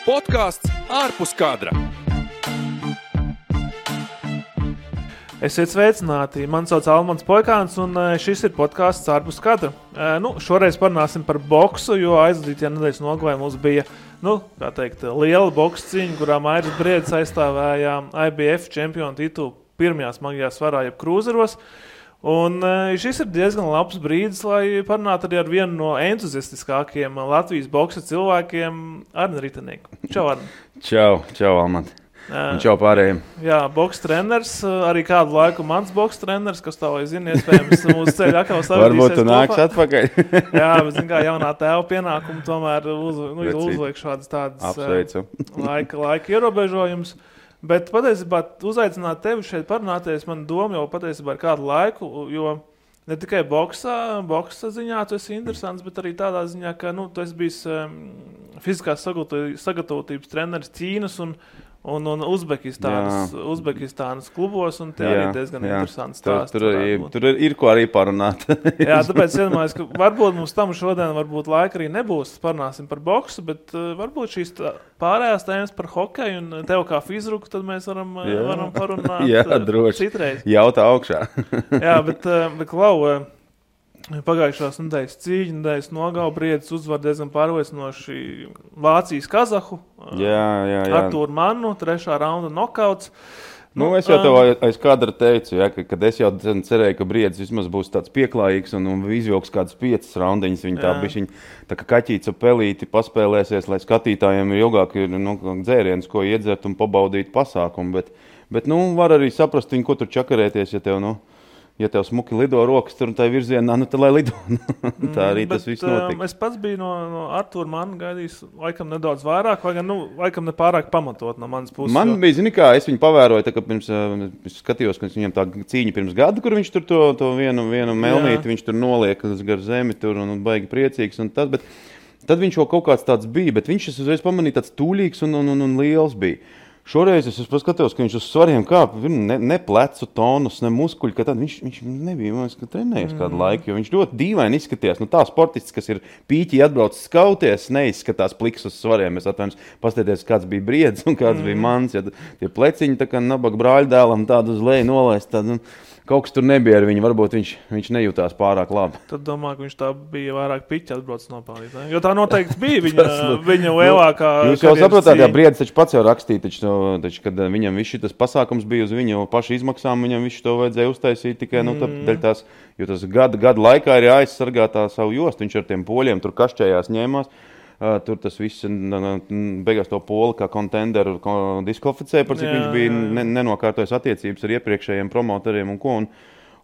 Podcasts ārpus kadra. Esiet sveicināti, mani sauc Almans Poikāns un šis ir podcasts ārpus kadra. Šoreiz parunāsim par boksu, jo aizvadītajā nedēļas nogalē mums bija, liela boksa cīņa, kurā Mairis Briedis aizstāvēja IBF čempionu titulu pirmajā smagajā svarā, jeb krūzeros. Un šis ir diezgan labs brīdis, lai parunātu arī ar vienu no entuziastiskākiem Latvijas boksa cilvēkiem, Arni Ritenieku. Čau, Arni. Čau, Almant. Un čau pārējiem. Jā, boksa treneris, arī kādu laiku mans boksa treneris, kas tā vai zina, iespējams mūsu ceļu atkal savadīsies. Varbūt tu nāks atpakaļ. Jā, bet zin kā jaunā tēva pienākuma tomēr uzliek šādas tādas laika ierobežojumus. Bet patiesībā uzaicināt tevi šeit parunāties, man doma jau patiesībā ir kādu laiku, jo ne tikai boksa ziņā tu esi interesants, bet arī tādā ziņā, ka tu esi bijis fiziskās sagatavotības treneris Ķīnas un Uzbekistānas klubos, un tie arī diezgan interesants stāsts. Tur ir ko arī parunāt. Jā, tāpēc iedomājos, ka varbūt mums tam šodien laika arī nebūs, parunāsim par boksu, bet varbūt šīs pārējās tēmas par hokeju un tev kā fizruku, tad mēs varam parunāt citreiz. Jautā augšā. Jā, bet Klau, pagājušās nedēļas cīņa, nedēļas nogala Briedis uzvar diezgan pārliecinoši Vācijas kazahu. Jā. Artūru Mannu, 3. raunda nokauts. Es jau tev aiz kadra teicu, kad es jau cerēju, ka Briedis vismaz būs tāds pieklājīgs un izvilks kādas 5 raundiņas. Viņi tā kā kaķīts ar pelīti paspēlēsies, lai skatītājiem ir ilgāk dzēriens, ko iedzert un pabaudīt pasākumu. Bet var arī saprast viņu, ko tur čakarēties, ja tev smuki lido rokas tur un tai virzienā, tad lai lido. Tā arī tas viss notika. Es pats biju no Artūra Manna gaidījis laikam nedaudz vairāk, vai gan, laikam nepārāk pamatot no manas puses. Man bija, zini kā, es viņu pavēroju, tā kā pirms skatījos, ka viņam tā cīņa pirms gada, kur viņš tur to vienu melnīti, viņš tur noliek gar zemi tur un baigi priecīgs un tas, bet tad viņš jau kaut kāds tāds bija, bet viņš uzreiz pamanīja tāds tūlīgs un liels bija. Šoreiz es paskatījos, ka viņš uz svariem kāp, ne plecu tonus, ne muskuļi, ka tad viņš nebija, man liekas, trenējies kādu laiku, jo viņš ļoti dīvaini izskatījās. Tā sportists, kas ir pīķī atbraucis skauties, neizskatās pliks uz svariem. Es atvainojos, paskatieties, kāds bija Briedis un kāds bija mans, ja tie pleciņi tā kā nabaga brāļdēlam tādu uz leju nolaist, tad kaut kas tur nebija ar viņu, varbūt viņš nejūtās pārāk labi. Tad domāju, ka viņš tā bija vairāk piķi atbraucis nopelnīt, ne? Jo tā noteikti bija viņa lielākā. Jūs jau saprotāt, jā, Briedis taču pats jau rakstīja, taču, kad viņam viss šitas pasākums bija uz viņu pašu izmaksām, viņam visu to vajadzēja uztaisīt tikai, dēļ tās, jo tas gada laikā ir jāaizsargā tā savu jostu, viņš ar tiem poļiem tur kašķējās ņēmās. Tur tas viss beigās to poli kā kontenderu diskvalificēja, par cik viņš bija nenokārtojis attiecības ar iepriekšējiem promotoriem un ko.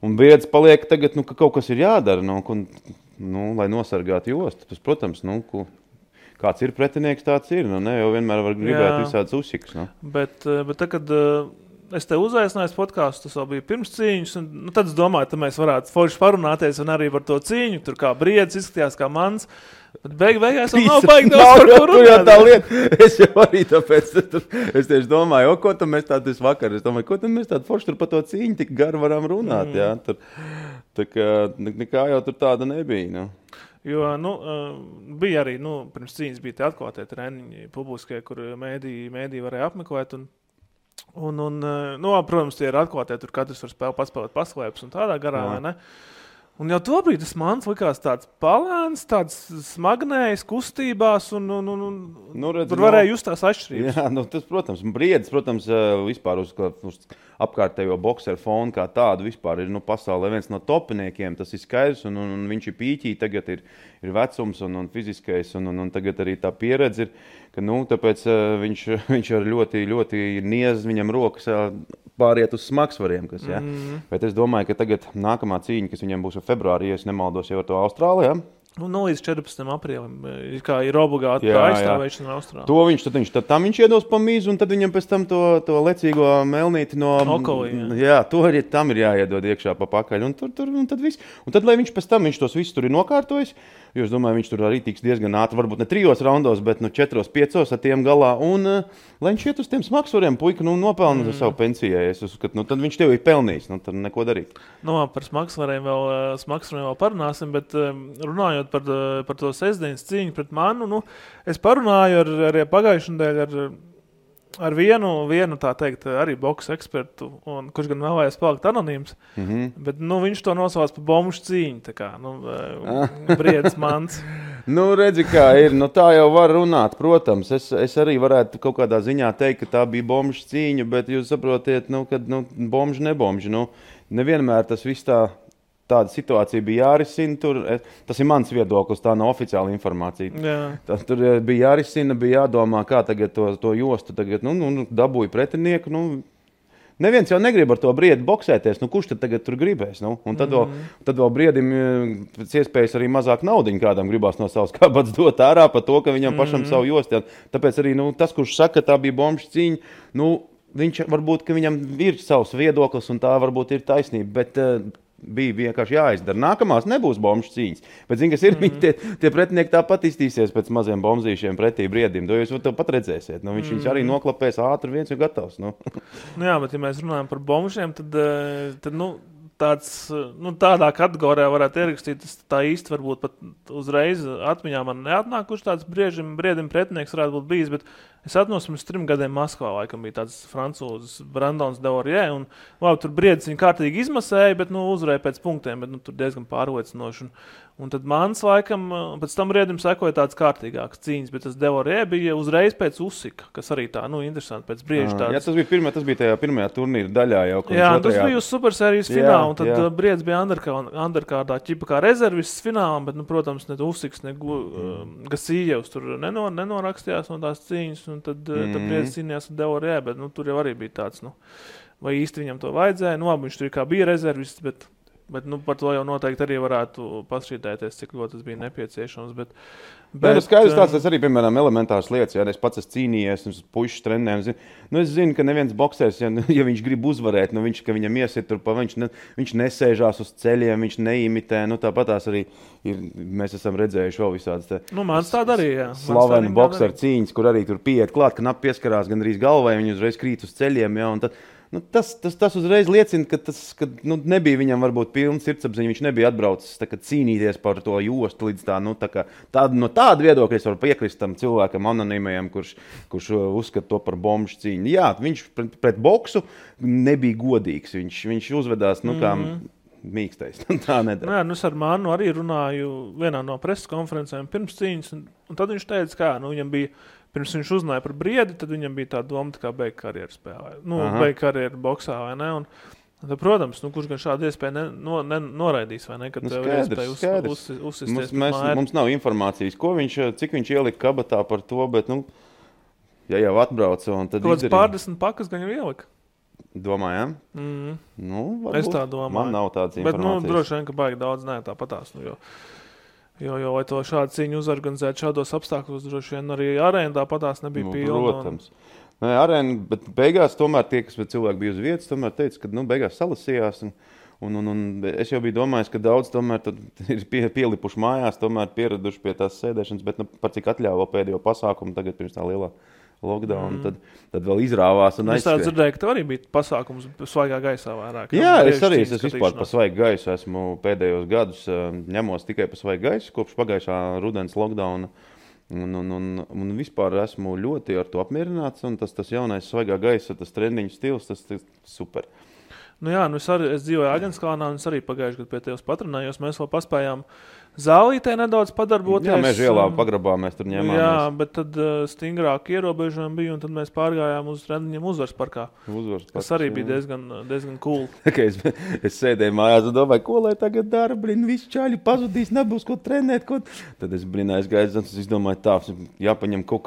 Un Briedis paliek tagad, ka kaut kas ir jādara, lai nosargātu jostu. Tas, protams, kāds ir pretinieks, tāds ir. Jau vienmēr var gribēt visādas uzsikas. Bet kad es te uzaicināju podcastu, tas vēl bija pirms cīņas, un tad es domāju, ka mēs varētu forši parunāties un arī par to cīņu. Tur kā Briedis izskatījās kā mans. Bet beigās nav baigi daudz par ko runāt. Tā lieta. Es jau arī tāpēc, es tieši domāju, ko tad mēs tādu vakar, ko tad mēs tādu forši tur par to cīņu tik garu varam runāt, jā. Tā kā nekā jau tur tāda nebija, Jo, bija arī, pirms cīņas bija tie atklātie treniņi publiskie, kur mēdī varēja apmeklēt, un protams, tie ir atklātie, tur katrs var paspēlēt paslēpes un tādā garā, vai ne? Un jau tobrīd tas mans likās tāds palēns, tāds smagnējs kustībās, un tur varēja just tās atšķirības. Jā, tas, protams, Briedis, vispār uz apkārtējo bokseru fonu kā tādu vispār ir pasaulē viens no topiniekiem, tas ir skaidrs, un viņš ir pīķī, tagad ir vecums un fiziskais, un tagad arī tā pieredze ir, ka, tāpēc viņš ar ļoti, ļoti niez viņam rokas pāriet uz smagsvariem, kas, jā. Bet es domāju, ka tagad nākamā cīņa, kas viņam būs februārī, ja es nemaldos jau ar to Austrālijā, Līdz 14. aprīlim, kā ir obligāti tā aizstāvēšana Austrālijā. To viņš iedos pa mīzu, un tad viņam pēc tam to lecīgo melnīti no Okolī, jā, tam ir jāiedod iekšā pa pakaļ, un tad viss. Un tad, lai viņš pēc tam, viņš tos visus tur ir nokārtojis, jo es domāju, viņš tur arī tiks diezgan ātri, varbūt ne 3 raundos, bet 4-5 ar tiem galā, un lai viņš iet uz tiem smagsvariem, puika, nopelna uz savu pensijai, es uzskatu, tad viņš tev ir pelnījis, tad neko darīt. Par smagsvariem vēl parunāsim, bet runājot runājot par to sestdienas cīņu pret manu, nu, es parunāju ar pagājušajā nedēļā ar vienu, tā teikt, arī boksa ekspertu, un kurš gan vēlējās palikt anonīms, bet, nu, viņš to nosauc par bombušu cīņu, tā kā, nu, Briedis Mans. Nu, redzi, kā ir, nu, tā jau var runāt, protams, es arī varētu kaut kādā ziņā teikt, ka tā bija bombušu cīņa, bet jūs saprotiet, nu, kad, nu, bombuši, nebombuši, nu, nevienmēr tas viss tāda situācija bija jārisina. Tas ir mans viedoklis, tā nav oficiāla informācija. Jā. Tur bija jārisina, bija jādomā, kā tagad to jostu tagad, dabūja pretinieku. Neviens jau negrib ar to Briedi boksēties. Kurš tad tagad tur gribēs? Un tad vēl Briedim pēc iespējas arī mazāk naudiņu kādam gribās no savas kabatas dot ārā par to, ka viņam pašam savu jostu. Tāpēc arī tas, kurš saka, tā bija bombušu cīņa, viņš varbūt, ka viņam ir savs viedoklis un tā varbūt ir taisnība, bet bija vienkārši jāizdara. Nākamās nebūs bombušu cīņas. Bet, zini, kas ir, tie pretinieki tāpat iztīsies pēc maziem bombzīšiem pretī Briedim. To jūs pat redzēsiet. Viņš arī noklapēs ātri, viens ir gatavs. Jā, bet ja mēs runājam par bombušiem, tad tādā kategorijā varētu ierakstīt, tā īsti varbūt pat uzreiz atmiņā man neatnāk, kurš tāds Briedim pretinieks varētu būt bijis, bet es atnos pirms 3 gadiem Maskavā, laikam bija tāds francūzis Brandons Devorie, un tur Briedis viņu kārtīgi izmasēja, bet uzvarēja pēc punktiem, bet tur diezgan pārliecinoši. Un tad mans laikam, pēc tam Briedim sekoja tāds kārtīgāks cīņas, bet tas Devorie bija uzreiz pēc Usika, kas arī tā, interesanti pēc Brieža tāds. Jā, tas bija tajā pirmajā turnīra daļā jau. Jā, tas bija uz supersērijas fināla, un tad Briedis bija underkārdā ķipa kā rezervists finālam, bet, protams, ne Usiks, ne Gasījevs tur nenorakstījās no tās cīņas, un tad Briedis cīnījās ar Devorie, bet tur jau arī bija tāds, vai īsti viņam to vajadzēja, viņš tur kā bija rezervists, bet par to jau noteikti arī varētu pašķītēties, cik ļoti tas bija nepieciešams. Bet skaidrs tāds, tas arī, piemēram, elementārs lietas. Ja es pats esmu cīnījies, un puišas trenēm. Es zinu, ka neviens boksēs, ja viņš grib uzvarēt, ka viņam iesit tur, viņš nesēžās uz ceļiem, viņš neimitē. Tāpatās arī mēs esam redzējuši vēl visādas mans tāda arī, jā. Slaveni bokseru cīņas, kur arī tur pieiet klāt, ka nap pieskarās gandrīz galvai, viņi uzreiz krīt uz ceļiem, jā, un tad tas uzreiz liecina, ka nebija viņam varbūt pilns sirdsapziņa, viņš nebija atbraucis cīnīties par to jostu līdz no tāda viedokļa es varu piekrist tam cilvēkam anonīmajam, kurš uzskata to par bombušu cīņu. Jā, viņš pret boksu nebija godīgs, viņš uzvedās, kā mīkstais. Tā nedara. Jā, es ar Mānu arī runāju vienā no preses konferencēm pirms cīņas, un tad viņš teica, kā, viņam bija pirms viņš uzzināja par Briedi, tad viņam bija tā doma, kā beigt karjeru spēlē. Beigt karjeru boksā, vai ne? Un tad, protams, kurš gan šādu iespēju noraidīs, vai ne? Kad tev ir iespēja uzsisties mums nav informācijas, cik viņš ielika kabatā par to, bet, ja jau atbrauca, un tad izdarīja. Kāds 40 pakas gan jau ielika? Domājam? Es tā domāju. Man nav tādas informācijas. Bet, droši vien, ka baigi daudz tāpatās, Jo, lai to šādu cīņu uzorganizētu šādos apstākļos, droši vien arī arēna tāpatās nebija pilna. Protams. Arēna, bet beigās tomēr tie, kas cilvēki bija uz vietas, tomēr teica, ka beigās salasījās. Un es jau biju domājis, ka daudz tomēr ir pielipuši mājās, tomēr pieraduši pie tās sēdēšanas, bet par cik atļāva pēdējo pasākumu tagad pirms tā lielā lockdown, tad vēl izrāvās un aizskrēja. Es tā dzirdēju, ka arī bija pasākums svaigā gaisā vairāk. Jā, es vispār pa svaigu gaisu esmu pēdējos gadus ņemos tikai pa svaigu gaisu, kopš pagājušā rudens lockdowna. Un vispār esmu ļoti ar to apmierināts, un tas jaunais svaigā gaisa, tas trendiņu stils, tas super. Es dzīvoju Aģenskalnā, un es arī pagājuši gadu pie tevis patrenējos, mēs vēl paspējām zālītē nedaudz padarboties. Jā, Meža ielā pagrabā mēs tur ņēmāmies. Jā, bet tad stingrāk ierobežojumi bija, un tad mēs pārgājām uz trendiņiem Uzvaras parkā. Kas arī bija diezgan cool. Es sēdēju mājās un domāju, ko lai tagad dara, visi čāļi pazudīs, nebūs ko trenēt. Tad es aizgāju, es domāju, tā, jāpaņem kaut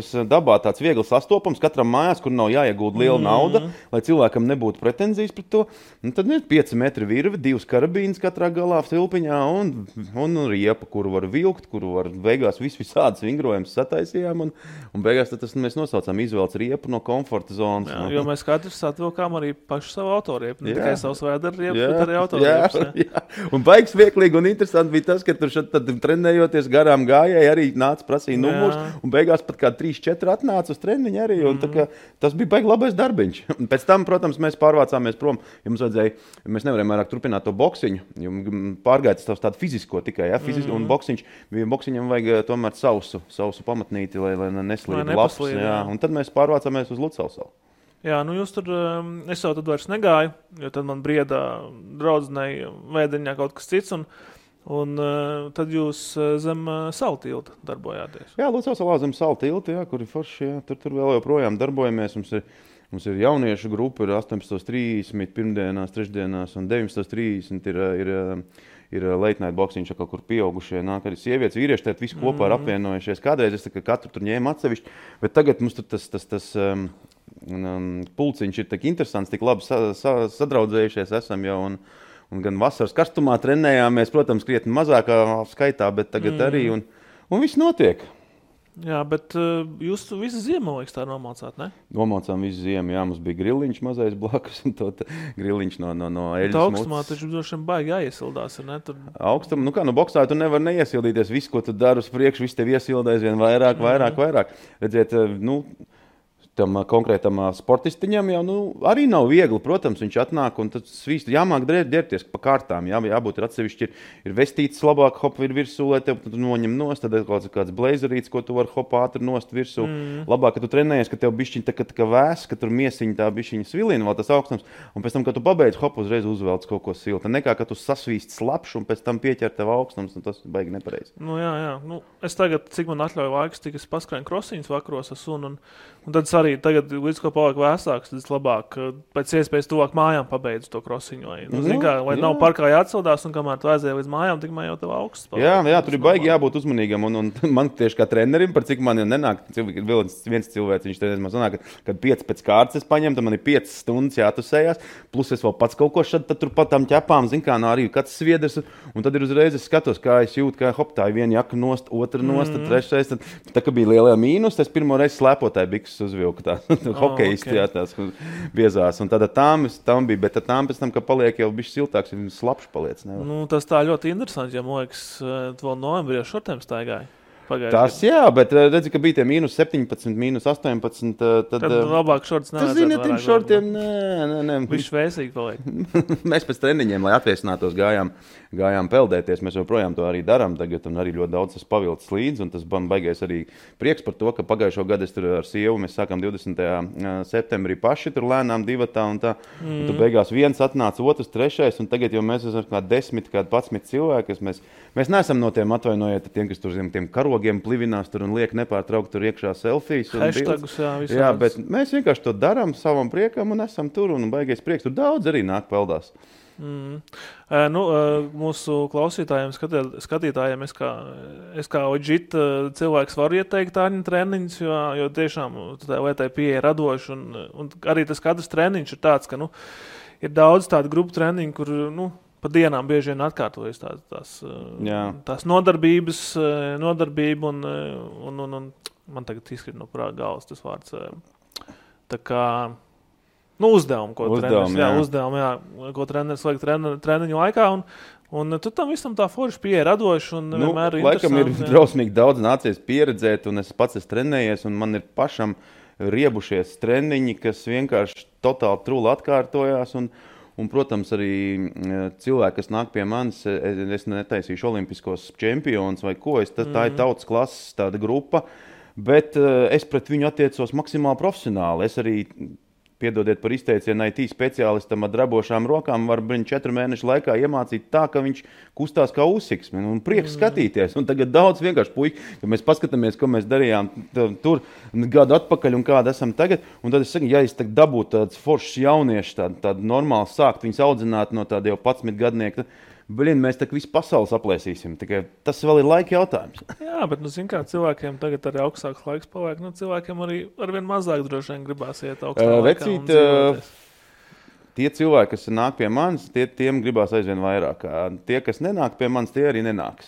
kas dabā tāds viegli sastopams, katram mājās, kur nav jāiegulda liela nauda, lai cilvēkam nebūtu pretenzijas pret to. Un tad ir 5 metri virve, 2 karabīnas katrā galā silpiņā un riepa, kuru var vilkt, kuru var beigās visādas vingrojums sataisījām, un beigās tad mēs nosaucām izvēlts riepu no komforta zonas. Jo mēs katrs atvilkām arī pašu savu autoriepu, ne tikai savus vēdera riepu, bet arī autoriepas. Jā. Un baigs vieglīgi un interesanti bija tas, ka tur tad trenējot garām gājēji arī nāca prasīja numurs, un beigās pat kā 3-4 atnāca uz treniņu arī, un tas bija baigi labais darbiņš. Un pēc tam, protams, mēs pārvācāmies prom, jo mēs nevarējām vairāk turpināt to boksiņu, jo pārgājis tādu fizisku fizisko tikai, un boksiņam vajag tomēr sausu pamatnīti, lai neslīd labs, un tad mēs pārvācāmies uz Lucavsalu. Jā, nu jūs tur, es jau tad vairs negāju, jo tad man briedā draudzenei Vēdeņā kaut kas cits, un tad jūs zem Salu tilta darbojāties. Jā, Lucavsalā zem Salu tilta, kur ir forši, tur vēl joprojām darbojamies, mums ir jauniešu grupa, ir 18.30 pirmdienās, trešdienās un 19.30 ir late night boksiņš, kaut kur pieaugušie nāk arī sievietes, vīrieši, tad visi kopā ir apvienojušies. Kādreiz es katru tur ņēmu atsevišķi, bet tagad mums tur tas pulciņš ir tik interesants, tik labi sadraudzējušies esam jau, un gan vasaras karstumā trenējāmies, protams, krietni mazākā skaitā, bet tagad arī, un viss notiek. Jā, bet jūs visu ziemu, liekas, tā nomaucāt, ne? Nomaucām visu ziemu, jā, mums bija griliņš mazais blakus, un to griliņš no eļas mucas. Augstumā taču droši vien baigi jāiesildās, ne? Augstum, boksā tu nevar neiesildīties, visu, ko tu dari uz priekšu, viss tev iesildēs vien vairāk. Redziet, tam konkrētam sportistiņam jau arī nav viegli, protams, viņš atnāk un tad svīst, jāmāk ģērbties pa kārtām, jābūt ir atsevišķi, ir vestīts labāk, hop ir virsū, lai tev noņem nost, tad ir kāds blazerīts, ko tu var hop ātri nost virsū. Labāk, ka tu trenējies, ka tev bišķiņ tā kā vēs, ka tur miesiņ tā bišķiņa svilina, vēl tas augstums, un pēc tam, kad tu pabeidz, hop uzreiz uzvelc kaut ko silta. Nekā, ka tu sasvīst slapš un pēc tam pieķer tev augstums, un tas baigi nepareizi. Jā. Es tagad, cik man atļauj laiks, tik es paskrēju krosiņas vakaros ar sunu, un tad arī tagad, līdz ko paliek vēsāks, tad es labāk pēc iespējas tuvāk mājām pabeidzu to krosiņu. Vai nav parkā jāatsildās, un kamēr tu aizēji līdz mājām, tikmēr jau tev augsts paliek. Jā, tur ir baigi jābūt uzmanīgam, un man tieši kā trenerim, par cik man nenāk, viens cilvēks, viņš treneris man sanāk, kad 5 pēc kārtas es paņem, tad man ir 5 stundas jātusējās, plus es vēl pats kaut ko šad, tad tur pat tam ķepām, arī kāds sviedrs, un tad ir uzreiz es skatos, kā es jūtu, kā hop, tā ir viena jaka nost, otra nost, trešais, tad tā kā bija lielajā mīnus, es pirmo reizi slēpotāju bikses uzvilku tā. Hokejisti, jā, tās biezās. Un tāda tām bija, bet tām pēc tam, ka paliek jau bišķi siltāks, ir slapš paliec. Tas tā ļoti interesanti, ja man liekas, tu vēl novembrī ar šortiem staigāji. Tas jā, bet redzi, ka bija tie mīnus 17, mīnus 18, tad labāk šorts nevajadzētu. Tas zini, tiem šortiem, nē. Viņš vēsīgi paliek. Mēs pēc treniņiem, lai atviesinātos, gājām peldēties. Mēs joprojām to arī darām tagad, un arī ļoti daudz tas pavilcis līdzi, un tas man baigais arī prieks par to, ka pagājušo gadu es tur ar sievu, mēs sākām 20. septembrī paši tur lēnām divatā, un tā, un tu beigās viens atnāca, otrs, trešais, un tagad jau mēs esam kā 10, kā 11 cilvēki, mēs neesam no tiem atvainojiet, tiem, kas tur zem tiem karogiem plivinās tur un liek nepārtraukt tur iekšā selfijas. Hashtagus, jā, bet mēs vienkārši to darām savam priekam un esam tur, un baigais prieks. Tur daudz arī nāk peldās. Mūsu klausītājiem, skatītājiem, es kā OJIT cilvēks varu ieteikt tāņu treniņus, jo tiešām vai tai pieeja radoši, un arī tas katrs treniņš ir tāds, ka ir daudz tādu grupu treniņu, kur pa dienām bieži vien atkārtojas tās nodarbība un man tagad izskrit no prāta galvas tas vārds. Tā kā uzdevumu, ko treneris vajag treniņu laikā, un tu tam visam tā forši pieeja radoši un vienmēr ir laikam ir drausmīgi daudz nācies pieredzēt, un es pats esmu trenējies, un man ir pašam riebušies treniņi, kas vienkārši totāli truli atkārtojās, un, protams, arī cilvēki, kas nāk pie manis, es netaisīšu olimpiskos čempionus vai ko, tā ir tautas klases tāda grupa, bet es pret viņu attiecos maksimāli profesionāli. Es arī, piedodiet par izteicienu, IT speciālistam ar drabošām rokām var 4 mēnešu laikā iemācīt tā, ka viņš kustās kā uzsiksme, un prieks skatīties. Un tagad daudz vienkārši puiši, kad mēs paskatāmies, ko mēs darījām tur gadu atpakaļ un kāda esam tagad, un tad es saku, ja es tagad dabūtu tāds foršs jaunieši, tādu normāli sākt viņus audzināt no tāda jau 11 gadnieka, mēs tā visu pasauli aplēsīsim. Tikai tas vēl ir laika jautājums. Jā, bet, kā cilvēkiem tagad arī augstāks laiks paliek, cilvēkiem arī arvien mazāk droši vien gribās iet augstā laikā un dzīvoties. Tie cilvēki, kas nāk pie manis, tiem gribās aizvien vairāk. Tie, kas nenāk pie manis, tie arī nenāks.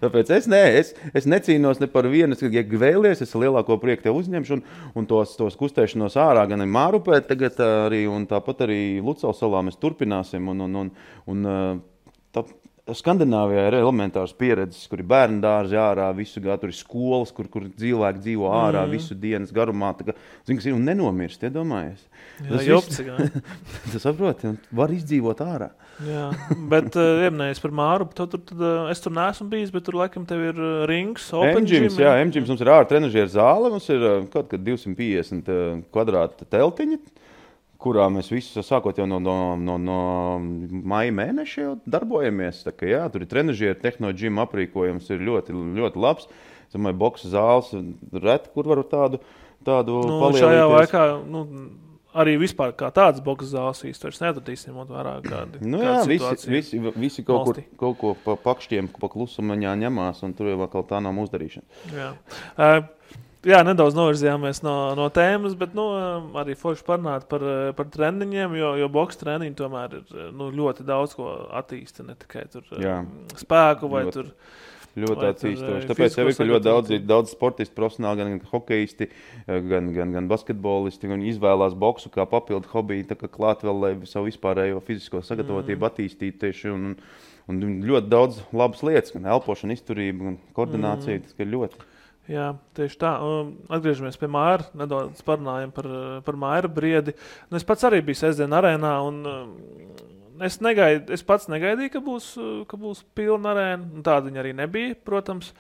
Tāpēc es necīnos ne par vienu, ja vēlies, es lielāko prieku tev uzņemšu un tos kustēšanos ārā gan Mārupē, tagad arī, un tāpat arī Lucavsalā mēs turpināsim. Skandināvijā ir elementārs pieredzes, kur ir bērnu dārzi ārā, visu gadu tur ir skolas, kur cilvēki dzīvo ārā visu dienas garumā. Zini, kas ir un nenomirst, iedomājies. Jā, jopci, jā. Tu saproti, var izdzīvot ārā. Jā, bet ieminējies par Māru, tad es tur neesmu bijis, bet tur laikam tev ir rings, open gym. Jā, M-gyms mums ir ārā trenažieru zāle, mums ir kaut kad 250 kvadrāta teltiņa, kurā mēs visi sākot jau no maija mēneša jau darbojamies. Tā kā jā, tur ir trenažieri, tehno-džima aprīkojums ir ļoti, ļoti labs. Es domāju, boksa zāles reti, kur varu tādu palielīties. Šajā laikā, arī vispār kā tāds boksa zāles īsti vairs netradīsim, ņemot vērā kādi. Visi kaut ko pa pakšķiem, pa klusumaņā ņemās, un tur jau vēl tā nav uzdarīšana. Jā. Jā, nedaudz novirzījāmies no tēmas, bet arī forši parunāt par treniņiem, jo boksa treniņi tomēr ir ļoti daudz ko attīsta, ne tikai tur spēku vai tur. Ļoti attīstoši. Tāpēc jau ir ļoti daudz sportisti, profesionāli, gan hokejisti, gan basketbolisti, un izvēlās boksu kā papildu hobiju, tā kā klāt vēl, lai savu vispārējo fizisko sagatavotību attīstītu tieši, un ļoti daudz labas lietas, gan elpošana, izturība, gan koordinācija, tas ir ļoti. Jā, tieši tā. Atgriežamies pie Māra, nedaudz parunājam par Māra briedi. Es pats arī biju sestdien arēnā, un es pats negaidīju, ka būs pilna arēna. Tāda viņa arī nebija, protams.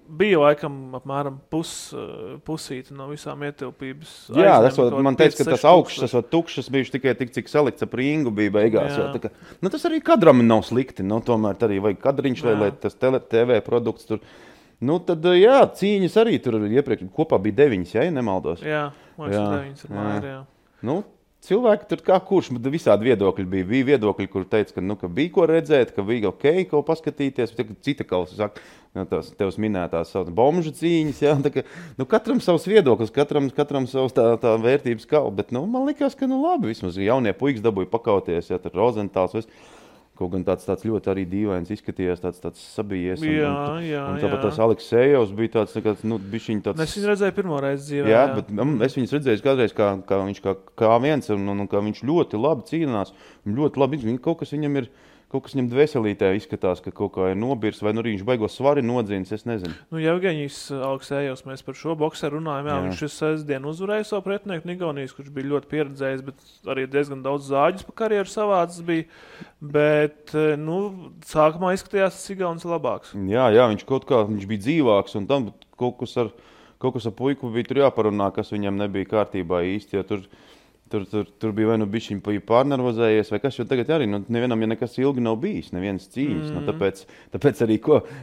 Bija laikam apmēram pusīti no visām ietilpības. Jā, man teica, ka tas augšs, tas tukšs bijuši tikai tik, cik salikts ap ringu bija beigās. Jā. Tas arī kadram nav slikti. Tomēr arī vajag kadriņš, lai tas TV produkts tur. Tad, jā, cīņas arī tur iepriekš kopā bija 9, ja nemaldos. Jā, 9 ir Māra, jā. Cilvēki tur kā kurš, bet visādi viedokļi bija. Bija viedokļi, kur teica, ka bija ko redzēt, ka bija ok, ko paskatīties. Cita kalsa saka, tevs minētās bomžu cīņas, jā. Katram savs viedoklis, katram savs tā vērtības kalba. Bet, man likās, ka labi, vismaz jaunie puikas dabūja pakauties, ja tur Rozentāls, kaut gan tāds ļoti arī dīvains izskatījās, tāds sabijies. Un tāpat tas Aleksejovs bija tāds, bišķiņ tāds... Es viņu redzēju pirmo reizi dzīvē. Jā, bet es viņus redzēju kādreiz, kā viņš kā viens, un kā viņš ļoti labi cīnās. Ļoti labi, kaut kas viņam dvēselītē izskatās, ka kaut kā ir nobirs, vai viņš baigo svari nodzīnis, es nezinu. Jevgeņijs Aleksejovs, mēs par šo bokseru runājam, jā. Viņš sestdien uzvarēja savu pretinieku Igaunijas, kurš bija ļoti pieredzējis, bet arī diezgan daudz zāģis pa karjeru savāds bija, bet, sākumā izskatījās tas Igaunis labāks. Jā, viņš bija dzīvāks, un tam kaut kas ar puiku bija tur jāparunā, kas viņam nebija kārtībā īsti, jo Tur bija vai bišķiņ pārnervozējies, vai kas, jo tagad arī, nevienam, ja nekas ilgi nav bijis, nevienas cīņas. Tāpēc arī,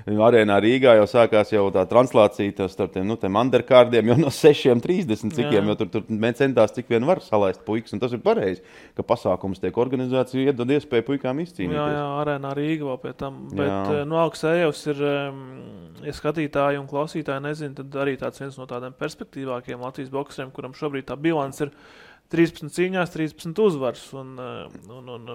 arēnā Rīgā jau sākās jau tā translācija starp tiem underkārdiem jau no 6:30 cikiem, jo tur centās cik vien var salaist puikas, un tas ir pareizi, ka pasākums tiek organizācija iedod iespēju puikām izcīnīties. Jā, arēnā Rīga vēl pie tam, bet Aleksejovs ir, ja skatītāji un klausītāji nezin, tad arī tāds viens no tādiem perspektīvākiem Latvijas bokseriem, kuram šobrīd tā bilants ir 13 cīņās, 13 uzvars.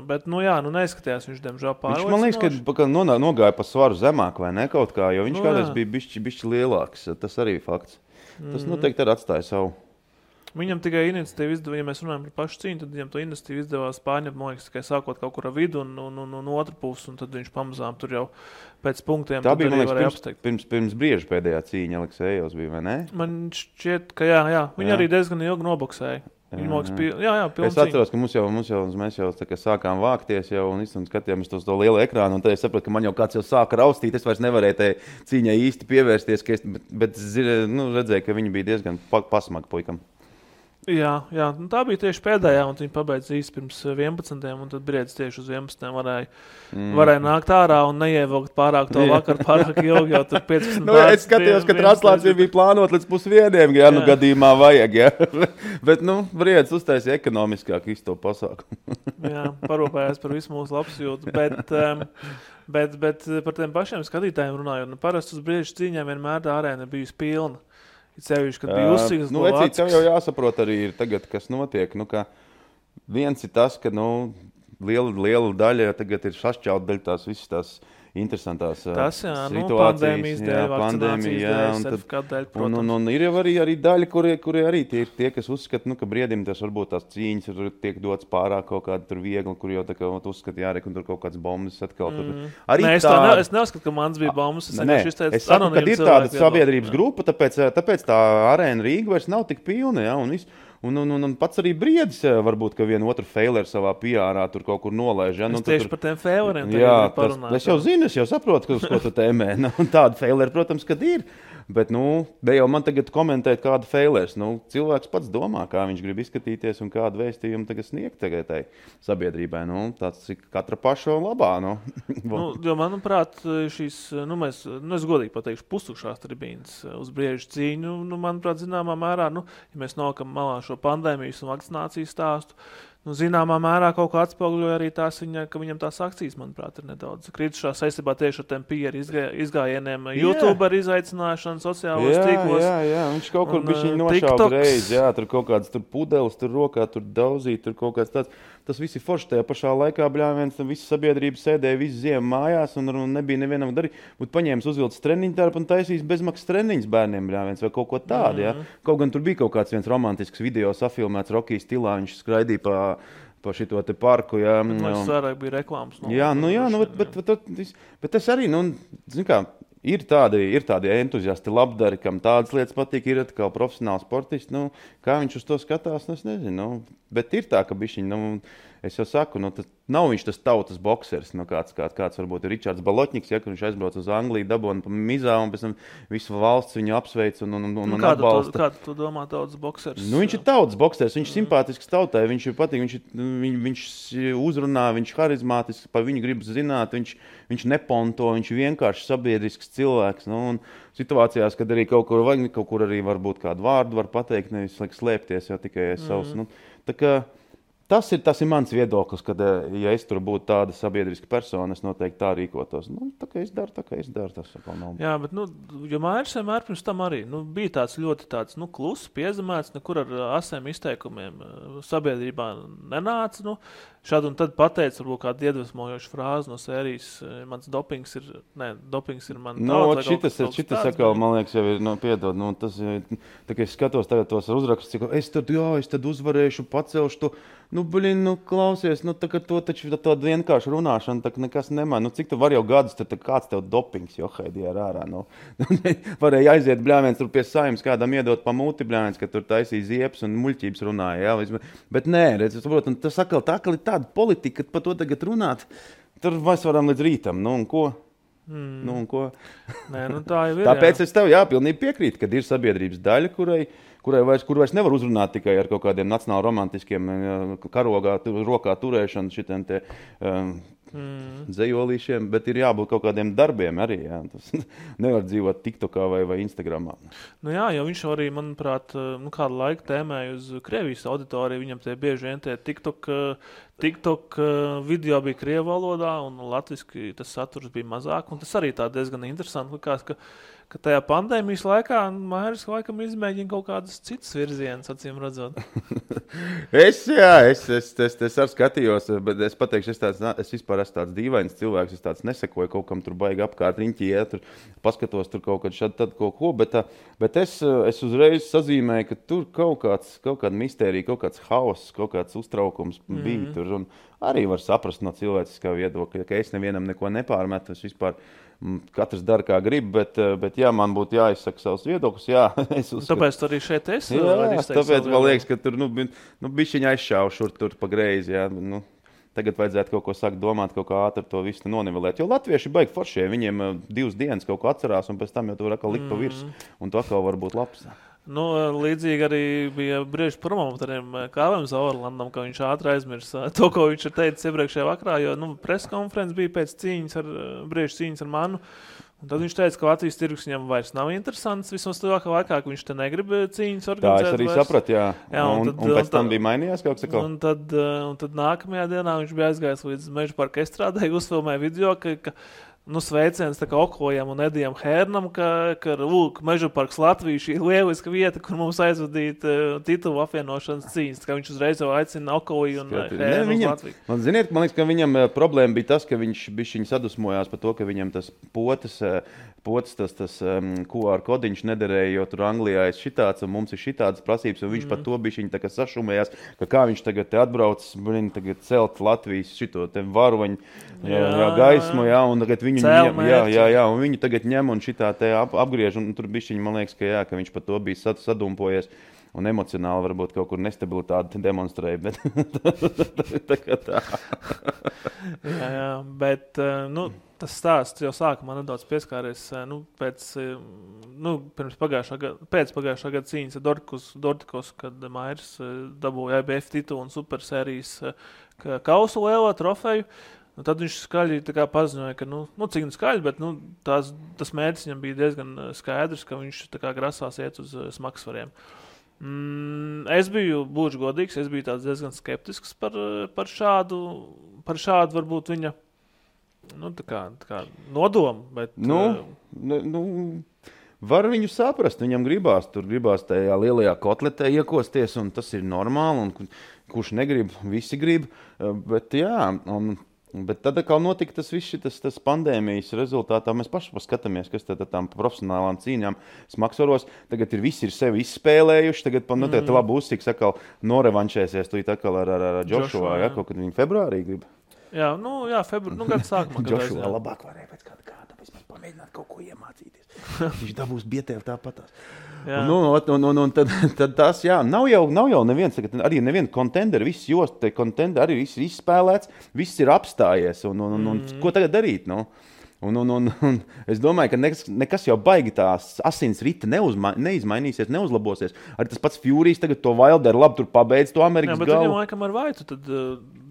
Bet, neizskatījās viņš, diemžēl, pārliecinoši. Man liekas, ka nogāja pa svaru zemāk, vai ne kaut kā, jo viņš kādreiz bija bišķi lielāks. Tas arī fakts. Tas noteikti arī atstāja savu. Viņam tikai iniciatīva izdevās, ja mēs runājam par pašu cīņu, tad viņam to iniciatīvu izdevās pārņemt, man liekas, tikai sākot kaut kur ar vidu un otru pusi, un tad viņš pamazām tur jau pēc punktiem tā bija, man liekas, pirms brieža pēdējā cīņa Aleksejovs bija, vai ne? Man šķiet, ka jā. Viņi arī diezgan ilgi noboksēja. Es atceros, ka mēs jau sākām vākties jau un skatījāmies uz to lielu ekrānu, un tad es sapratu, ka man jau kāds jau sāka raustīt, es vairs nevarēju tai cīņai īsti pievērsties, bet redzēju, ka viņi bija diezgan pasmagi puikam. Jā, tā bija tieši pēdējā, un viņi pabeidz īsti pirms 11, un tad briedis tieši uz 11 varēja nākt ārā un neievilkt pārāk to vakar, pārāk ilgi, jau tur 15. Es skatījos, ka translācija bija plānot līdz 1:30, ja gadījumā vajag, ja. Bet, briedis uztaisīja ekonomiskāk visu to pasākumu. Jā, parūpējās par visu mūsu labsajūtu, bet par tiem pašiem skatītājiem runājot, parasti uz briežu cīņām vienmēr tā arēna ir bijusi pilna. Sevišķi, kad bija uzsīgas Vecīt, tev jau jāsaprot arī ir tagad, kas notiek. Viens ir tas, ka liela daļa tagad ir sašķaut daļa tās visas tās interesantās Tas, jā, situācijas. Pandēmijas dēļ, vakcinācijas dēļ, sertifikātu dēļ, protams. Un ir jau arī daļa, kuri arī tie, kas uzskata, ka briedim tas varbūt tās cīņas tur tiek dots pārāk kaut kāda tur viegli, kur jau tā kā uzskata jārek un tur kaut kāds bombas atkal. Arī es neuzskatu, ka mans bija bombas. Es saku, ka ir tāda sabiedrības grupa, tāpēc tā arēna Rīga vairs nav tik pilna, ja, un pats arī Briedis varbūt, ka vienu otru feileru savā PR-ā tur kaut kur nolaiž. Ja? Tieši par tiem feileriem parunāt. Es jau zinu, es jau saprotu, ko tu tēmē. Tāda feileri, protams, kad ir. Bet, ne jau man tagad komentēt kādu feilers. Cilvēks pats domā, kā viņš grib izskatīties un kādu vēstījumu tagad sniegt tai sabiedrībai. Tas ir katra paša labā. Jo, manuprāt, šīs, es godīgi pateikšu, pustukšās tribīnas uz Briežu cīņu, manuprāt, zināmā mērā, ja mēs nokam malā šo pandēmijas un vakcinācijas stāstu, zināmā mērā kaut kā atspoguļoja arī tās ka viņam tās akcijas, manuprāt, ir nedaudz kritušās saistībā tieši ar tiem PR izgājieniem, YouTuber izaicināšanu, sociālos tīklos. Jā, viņš kaut kur bišķiņ nošauba reiz, jā, tur kaut kāds tur pudelis, tur rokā, tur daudzīt, tur kaut kāds tāds. Tas viss ir forši tajā pašā laikā, bļāviens, visa sabiedrība sēdēja visu ziemu mājās un nebija nevienam darīt. Būtu paņēmis uzvilcis treniņu tērpu un taisījis bezmaksas treniņus bērniem, bļāviens, vai kaut ko tādu, jā. Kaut gan tur bija kaut kāds viens romantisks video safilmēts Rocky stilā, viņš skraidīja pa šito te parku, jā. Tas vairāk bija reklāmas. Bet tas arī, zin kā, ir tādi entuziasti labdari, kam tādas lietas patīk, ir atkal profesionāli sportisti, kā viņš uz to skatās, es nezinu, bet ir tā, ka bišķiņ, es jau saku, tas nav viņš tas tautas boksers, kāds varbūt ir Ričards Balotņiks, ja, kur viņš aizbrauc uz Angliju, dabona pa mizā un pēc tam visu valsts viņu apsveic un atbalsta. Kādu tu domā tautas boksers? Viņš ir tautas boksers, viņš simpātisks tautai, viņš ir patīk, viņš uzrunā, viņš harizmātisks, pa viņu grib zināt, viņš neponto, viņš ir vienkārši sabiedrisks cilvēks, un situācijās, kad arī kaut kur arī varbūt kādu vārdu var pateikt, nevis slēpties, jo tikai es savus, tā kā Tas ir mans viedoklis, ka, ja es tur būtu tāda sabiedriska persona, es noteikti tā rīkotos. Tā kā es daru, tas atkal nav. Jā, bet, jo Māris vienmēr pirms tam arī, bija tāds ļoti kluss, piezemēts, nekur ar asiem izteikumiem sabiedrībā nenāca, šādu un tad pateica, varbūt kādu iedvesmojošu frāzi no sērijas, dopings ir man daudz. Šitas atkal, man liekas, jau ir, piedod, tas, tā kā es skatos tagad tos uzrakstus, es tad uzvarēšu, pacelšu to, klausies, to taču tādu vienkārši runāšanu, tā nekas nemā. Cik tu var jau gadus, tad kāds tev dopings, johaidī ar ārā, varēja aiziet bļāviens tur pie Saeimas, kādam iedot pa muti bļāviens, ka tur taisīja ziepes un muļķības runāja, jā, bet nē, protams, tas atkal ir tāda politika, ka par to tagad runāt, tur mēs varam līdz rītam, un ko? Un ko? Nē, tā jau ir, Tāpēc es tev pilnīgi piekrītu, kad ir sabiedrības daļa, kur vairs nevar uzrunāt tikai ar kaut kādiem nacionāli romantiskiem karogā, rokā turēšanu šitiem te dzejolīšiem, bet ir jābūt kaut kādiem darbiem arī, jā. Tas nevar dzīvot TikTokā vai Instagramā. Jā, jo viņš arī, manuprāt, kādu laiku tēmēja uz Krievijas auditoriju, viņam tie bieži vien tie TikTok video bija krievu valodā un latviski tas saturs bija mazāk, un tas arī tā diezgan interesanti likās, ka tajā pandēmijas laikā Māris laikam izmēģina kaut kādas citas virzienas, acīm redzot. Es arī skatījos, bet es pateikšu, es vispār esmu tāds dīvains cilvēks, es tāds nesekoju kaut kam tur baigi apkārt riņķī, tur paskatos tur kaut kad šad tad kaut ko, bet es uzreiz sazīmēju, ka tur kaut kāda mistērija, kaut kāds hauss, kaut kāds uztraukums bija tur, un arī var saprast no cilvēciskā viedokļa, ka es nevienam neko nepārmetu, es vispār katrs dara, kā grib, bet jā, man būtu jāizsaka savus viedokļus, jā. Tāpēc tu arī šeit esi? Jā, tāpēc man liekas, ka tur, bišķiņ aizšāvu šur tur pa greizi, jā. Tagad vajadzētu kaut ko sākt domāt, kaut kā ātri to visu nonivelēt, jo latvieši baigi foršie, viņiem 2 dienas kaut ko atcerās, un pēc tam jau tu var atkal likt pa virs, un tu atkal var būt labs. Līdzīgi arī bija Briežu promotoriem Kāvēm Zaurlandam, ka viņš ātri aizmirsa to, ko viņš ir teicis iepriekšējā vakarā, jo preskonferences bija pēc Briežu cīņas ar manu. Un tad viņš teica, ka Latvijas tirgus viņam vairs nav interesants, vismaz tuvākā laikā, ka viņš te negrib cīņas organizēt. Tā es arī sapratu, jā. Un pēc tam bija mainījās kaut kas. Un tad nākamajā dienā viņš bija aizgājis līdz Meža parka estrādē, uzfilmēja video, ka sveiciens tā kā Okojam un Edijam Hērnam, ka Meža parks Latvija šī lieliska vieta, kur mums aizvadīt titulu apvienošanas cīņas. Kā viņš uzreiz jau aicina Okoju un Hērnu uz Latviju. Man liekas, ka viņam problēma bija tas, ka viņš sadusmojās par to, ka viņam tas potes tas QR kodiņš nederēja, jo tur Anglijā ir šitāds un mums ir šitādas prasības, un viņš par to bija tā kā sašumējās, ka kā viņš tagad te atbrauc, tagad celt Latvijas šito te varoņu gaismu, un tagad viņu un viņu tagad ņem un šitā te apgriež, un tur bišķiņ, man liekas, ka viņš par to bija sadumpojies. Un emocionāli varbūt kaut kur nestabilitāti demonstrēja, bet tā kā tā. jā, bet, tas stāsts jau sākumā nedaudz pieskāries, pirms pagājušā gada cīņas ar Dortikos, kad Mairs dabūja IBF titulu un supersērijas kausu lielo trofeju. Tad viņš skaļi paziņoja, ka, cik skaļi, bet tas mērķis viņam bija diezgan skaidrs, ka viņš grasās iet uz smagsvariem. Es biju, būšu godīgs, es biju tāds diezgan skeptisks par šādu varbūt viņa tā kā nodomu. Bet, var viņu saprast, viņam gribās tajā lielajā kotletē iekosties, un tas ir normāli, un kurš negrib, visi grib, bet jā, bet tad kā notika tas viss tas pandēmijas rezultātā, mēs paši paskatāmies, kas tad tām profesionālām cīņām smagsvaros, tagad visi ir sevi izspēlējuši, tagad tagad labi uzsiks atkal norevanšēsies tu atkal ar Joshua, kaut kad viņi februārī grib. Jā, gada sākumā. Joshua labāk varēja pēc kāda pamēģināt kaut ko iemācīties. Viņš dabūs bietēv tāpatās. Un tad tas, nav jau neviens, arī neviena kontenderi, viss jost, kontenderi arī viss ir izspēlēts, viss ir apstājies, un ko tagad darīt, Un es domāju, ka nekas jau baigi tās asins rita neizmainīsies, neuzlabosies. Arī tas pats Furijas tagad to Wilderu labi tur pabeidz to Amerikas galu. Jā, bet viņam laikam ar Vaitu, tad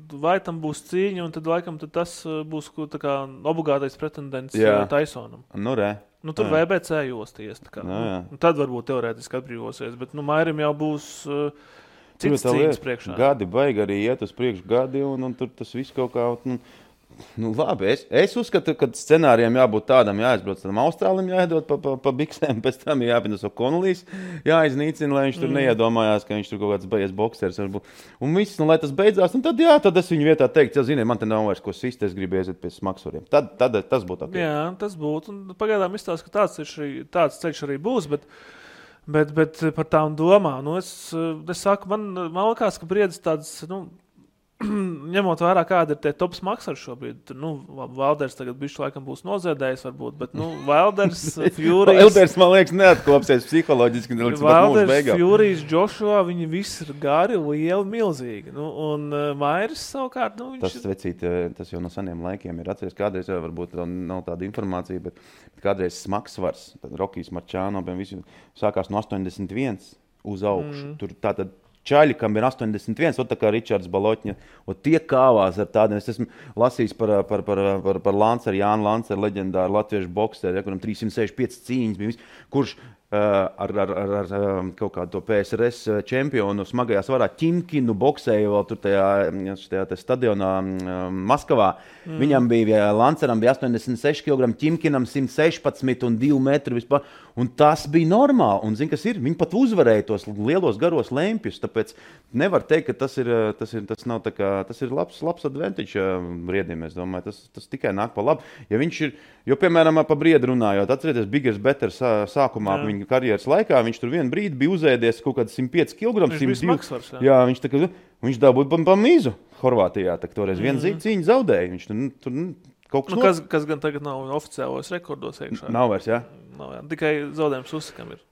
Vaitam būs cīņa, un tad laikam tas būs tā kā obligātais pretendents Tysonam. Tur VBC josties. Tad varbūt teorētiski atbrīvosies, bet Mairim jau būs cits cīņas priekšā. Gadi baigi arī iet uz priekšu gadi, un tur tas viss kaut kā... labi, es uzskatu, ka scenārijam jābūt tādam, jāizbrauc tam Austrālim, jāiedod pa biksēm, pēc tam jāpienas O'Connellijs, jāiznīcina, lai viņš tur neiedomājās, ka viņš tur kaut kāds beigas boksers varbūt. Un viss, lai tas beidzās, un tad es viņu vietā teiktu, man te nav vairs ko sist, es gribu iesiet pie smagsvariem. Tad tas būtu ok. Jā, tas būtu, un pagaidām izstāst, ka tāds ceļš arī būs, bet par tām domām, es saku, man likās, ka briedis tāds, ņemot vērā, kāda ir tie top smagsvari šobrīd, Valders tagad bišķi laikam būs noziedējis varbūt, bet, Valders, Furijas... Valders, man liekas, neatklopsies psiholoģiski. Valders, Furijas, Joshua, viņi visi ir gari, lieli, milzīgi. Un Mairis savukārt, Tas jau no seniem laikiem ir atceries, kādreiz jau varbūt nav tāda informācija, bet kādreiz smagsvars, tad Rokijs Marčāno, visi sākās no 81 uz augšu. Tur tātad čaļi, kam ir 81, tā kā Ričards Balotņa, tie kāvās ar tādiem. Es esmu lasījis par Lanceru, Jānu Lanceru, leģendāru latviešu bokseru, kuram 365 cīņas bija, kurš ar kaut kādu to PSRS čempionu smagajā svarā Ķimkinu boksēja vēl tur tajā stadionā Maskavā. Viņam bija, Lanceram bija 86 kg, Ķimkinam 116 un 2 metri vispār. Un tas bija normāli. Un zini, kas ir? Viņi pat uzvarēja tos lielos garos lempjus, tāpēc nevar teikt, ka tas nav tā kā, tas ir labs advantage briedim, es domāju. Tas tikai nāk pa labu. Ja viņš ir, jo, piemēram, pa briedu runājot, atcerieties, Biggers Better sākumā viņa karjeras laikā, viņš tur vienu brīdi bija uzēdies kaut kāds 105 kg. Viņš bija smagsvars, jā, viņš dabūja pa mīzu Horvātijā, tā toreiz vienu cīņu zaudēja. Viņš tur kaut kas gan tagad nav oficiālos rekordos iekšā. Nav vairs, jā? Nav, jā. Tikai zaudējums Usakam ir.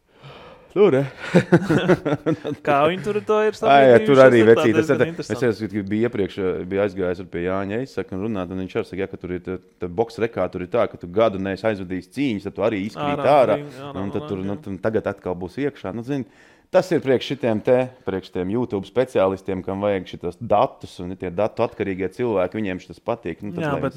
Tur, Kā viņi tur to ir sabiedrījuši? Tur arī vecīt. Es biju iepriekš aizgājis ar pie Jāņa Eisaku un runāt, un viņš arī saka, ka tur ir boks rekā, tur ir tā, ka tu gadu neesi aizvadījis cīņas, tad tu arī izkrīt ārā, un tad tur tagad atkal būs iekšā. Zini, Tas ir priekš šitiem YouTube speciālistiem, kam vajag šitos datus, un tie datu atkarīgie cilvēki, viņiem šis patīk. Nu, tas, jā, bet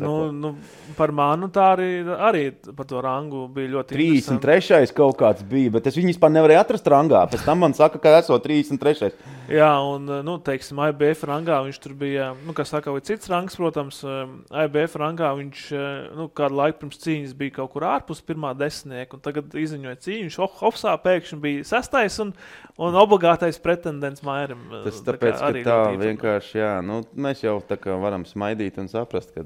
par manu tā arī par to rangu bija ļoti 33. kaut kāds bija, bet es viņu vispār nevarēju atrast rangā. Pēc tam man saka, ka esot 33. Jā, un, teiksim, IBF rangā viņš tur bija, kā saka, vai cits rangs, protams, IBF rangā viņš, kādu laiku pirms cīņas bija kaut kur ārpus pirmā desmitnieka, un tagad izziņoja cīņu, viņš hopsā pēkšņi bija 6. un obligātais pretendents Mairim. Tas tāpēc, ka tā vienkārši, jā, mēs jau tā kā varam smaidīt un saprast, ka,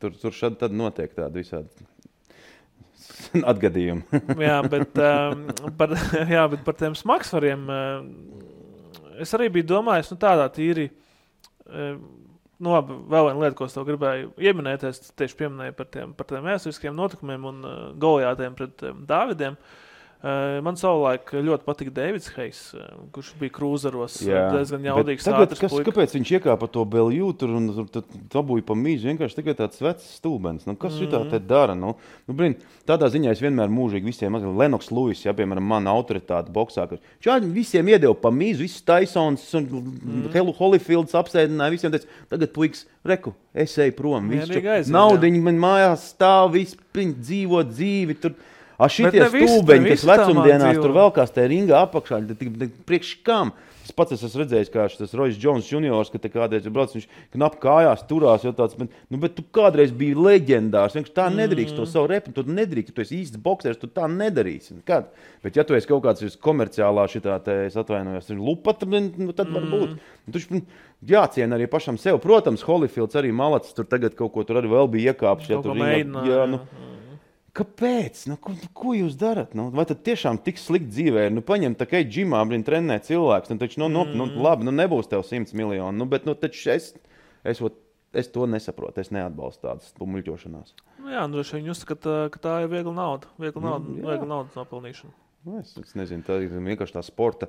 tur šad tad notiek tādi visādi atgadījumi. Jā, bet par tiem smagsvariem es arī biju domājis, tādā tīri, labi, vēl viena lieta, ko es tev gribēju ieminēties, tieši pieminēju par tiem vēsturiskiem notikumiem un Goliātiem pret Dāvidiem. Man savulaik ļoti patika Davids Hayes, kurš bija krūzeros, diezgan jaudīgs ātrs puika. Kāpēc viņš iekāpa to Belju tur un dabūja pa mīzu? Vienkārši tikai tāds vecs stūbens. Kas šitā te dara? Tādā ziņā es vienmēr mūžīgi visiem, Lennox Lewis, piemēram, mana autoritāte boksā, ka šādi visiem iedeva pa mīzu, visus Tysons un Holyfields apsēdināja, visiem teica, tagad puiks, reku, es eju prom, naudiņi man mājās stāv, visi dzīvo dzīvi, tur. Šitie stūbeņi, kas vecumdienās tur vēl kāds te ringā apakšā, priekš kam? Es pats esmu redzējis, kā šis Royce Jones juniors, ka te kādreiz ir brauc, viņš knap kājās turās, jo tāds, bet tu kādreiz biji leģendārs, vienkārši tā nedrīkst to savu repu, tu nedrīkst, tu esi īsts boksers, tu tā nedarīsi. Kad? Bet ja tu esi kaut kāds komerciālā šitā, es atvainojos, lupata, tad var būt. Tu jāciena arī pašam sev. Protams, Holyfields arī malacis, tur tagad kaut ko tur arī vēl bija iekāpš. Kaut ko mēģinā. Kāpēc? Ko jūs darat? Vai tad tiešām tik slikti dzīvē ir? Paņem tā kā džimā, trenē cilvēks, taču, labi, nebūs tev 100 miljoni, bet, taču es to nesaprotu, es neatbalstu tādas muļķošanās. Jā, droši vien uzskata, ka tā ir viegla nauda, viegla naudas nopelnīšana. Es nezinu, tā ir vienkārši tā sporta,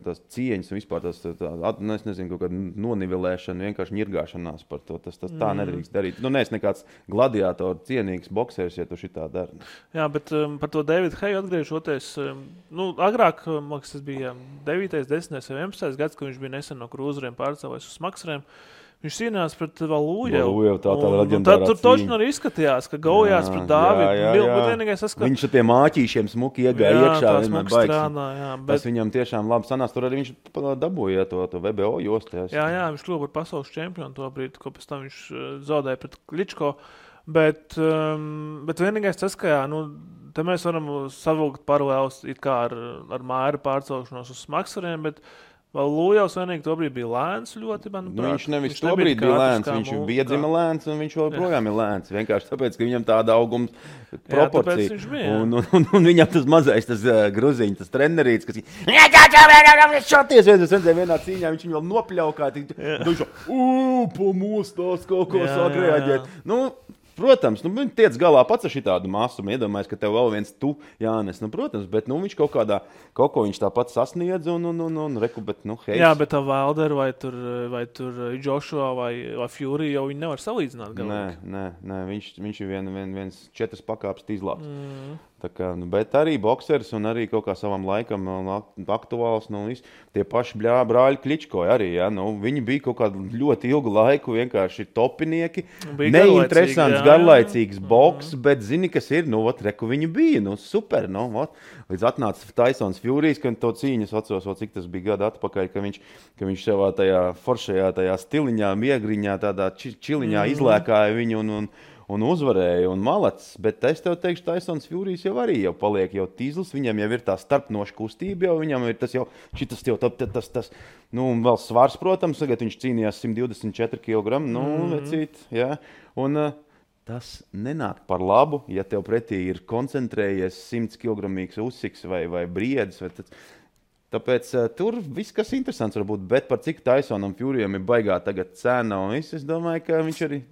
tās cieņas un vispār es nezinu, kaut kāda nonivelēšana, vienkārši ņirgāšanās par to. Tas tā nedrīkst darīt. Neesi nekāds gladiātoru cienīgs boksers, ja tu šitā dari. Jā, bet par to Davidu Hayu atgriežoties, agrāk, man liekas, tas bija 9., 10. vai 11. gads, kad viņš bija nesen no krūzeriem pārcēlējis uz smagsvariem. Viņš cīnījās pret Valūjevu. Tad tur točni arī izskatījās, ka gaujās pret Dāvidu. Viņš ar tiem māķīšiem smuki iegāja iekšā. Tas viņam tiešām labi sanās. Tur arī viņš dabūja to VBO jostu. Jā, viņš kļuva par pasaules čempionu to brīdi, ko pēc tam viņš zaudēja pret Kličko. Bet vienīgais tas, ka te mēs varam savilkt paralēlus it kā ar Maira pārcelšanos uz smagsvariem, bet Valūjevs vienīgi tobrīd bija lēns ļoti, manuprāt. Viņš nevis tobrīd bija lēns, viņš bija dzima lēns un viņš joprojām ir lēns. Vienkārši tāpēc, ka viņam tāda auguma proporcija. Un viņam tas mazais, tas gruziņš, tas trenerīts, kas šoties vienā cīņā, viņš viņu vēl nopļaukā. Viņš pamostās kaut ko sāk reaģēt. Protams, tiec galā pats ar šitādu māsumu, iedomājies, ka tev vēl viens Jānis, protams, bet viņš kaut ko viņš tāpat sasniedz un reku, bet, hei. Jā, bet tā Wilder vai tur Joshua vai Fury jau viņi nevar salīdzināt galīgi. Nē, viņš ir viens 4 pakāpes izlāps. Bet arī boksers un arī kaut kā savam laikam aktuāls, tie paši brāļi Kličko arī, viņi bija kaut kādu ļoti ilgu laiku vienkārši topinieki, neinteresants, garlaicīgs boks, bet zini, kas ir, reku viņi bija, super, līdz atnāca Tysons Furijas, kad to cīņas atceros, cik tas bija gadu atpakaļ, ka viņš savā tajā foršajā tajā stiliņā, miegriņā, tādā čiliņā izlēkāja viņu un uzvarēja un malacis, bet es tev teikšu, Tysons Furijas jau arī jau paliek jau tīzlis, viņam jau ir tā starpnoša kustība, jau viņam ir tas jau, tas vēl svars, protams, tagad viņš cīnījās 124 kg, vecīt, jā, un tas nenāk par labu, ja tev pretī ir koncentrējies 100 kg uzsiks vai briedis, tāpēc tur viss, kas interesants var būt, bet par cik Tysonam Furijam ir baigā tagad cena, un es domāju, ka viņš arī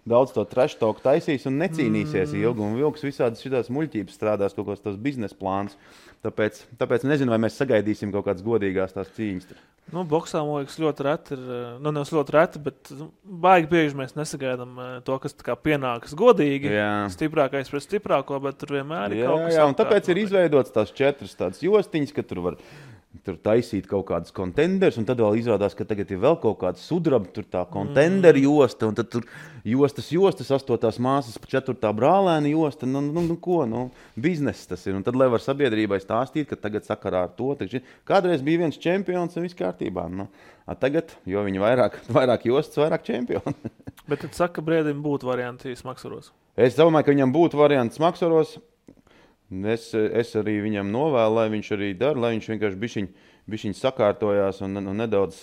daudz to trash talk taisīs un necīnīsies ilgi, un vilks visādas šitās muļķības strādās, kaut kāds tos biznesa plāns. Tāpēc nezinu, vai mēs sagaidīsim kaut kādas godīgās tās cīņas. Boksā, man liekas, ļoti reti ir, nevis ļoti reti, bet baigi bieži mēs nesagaidām to, kas tā kā pienākas godīgi, stiprākais pret stiprāko, bet tur vienmēr ir kaut kas. Jā, un tāpēc ir izveidots tās 4 tādas jostiņas, ka tur var tur taisīt kaut kādus kontenders, un tad vēl izrādās, ka tagad ir vēl kaut kāda sudraba, tur tā kontendera josta, un tad tur jostas, 8. māsas, 4. brālēna josta, bizness tas ir. Un tad, lai var sabiedrībai stāstīt, ka tagad sakarā ar to, kādreiz bija viens čempions un viss kārtībā. Tagad, jo viņi vairāk jostas, vairāk čempioni. Bet tad saka, ka Briedim būtu varianti smaksaros. Es domāju, ka viņam būtu variants smaksaros. Es arī viņam novēlu, lai viņš arī dara, lai viņš vienkārši bišķiņ sakārtojās un nedaudz...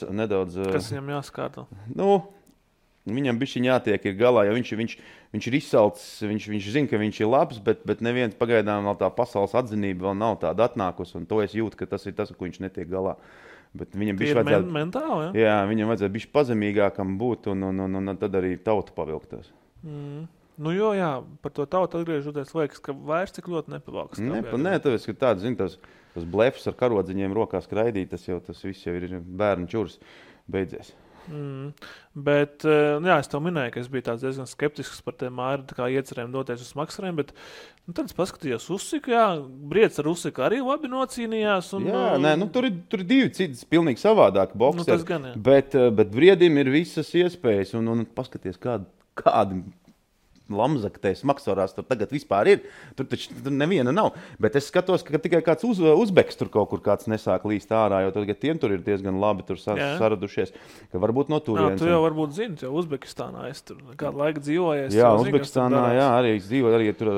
Kas viņam jāskārto? Viņam bišķiņ jātiek ir galā, jo viņš ir izsalcis, viņš zina, ka viņš ir labs, bet neviens pagaidām vēl tā pasaules atzinība vēl nav tāda atnākusi, un to es jūtu, ka tas ir tas, ko viņš netiek galā. Bet viņam bišķi vajadzētu... mentāli, ja? Jā, viņam vajadzētu bišķi pazemīgākam būt, un tad arī tauta pavilktos. Jā, par to tautu atgriežoties, liekas, ka vairs cik ļoti nepavalks. Nē, tāpēc, ka tāds, tas blefs ar karodziņiem rokā skraidīt, tas viss jau ir bērnu čurs beidzies. Bet, es tev minēju, ka es biju tāds diezgan skeptisks par tiem Māri iecerēm doties uz smaksariem, bet tad es paskatījos Usiku, Briedis ar Usiku arī labi nocīnījās. Tur ir divi citas pilnīgi savādāki bokseri, tas gan, bet Briedim ir visas iespējas, un paskaties, kādi lamzaktēs maksarās tur tagad vispār ir. Tur taču neviena nav. Bet es skatos, ka tikai kāds uzbeks tur kaut kur kāds nesāk līst ārā, jo tagad tiem tur ir diezgan labi tur saradušies, ka varbūt no turienes. Tu jau varbūt zini, jo Uzbekistānā es tur kādu laiku dzīvojies. Jā, Uzbekistānā, arī es dzīvoju, arī tur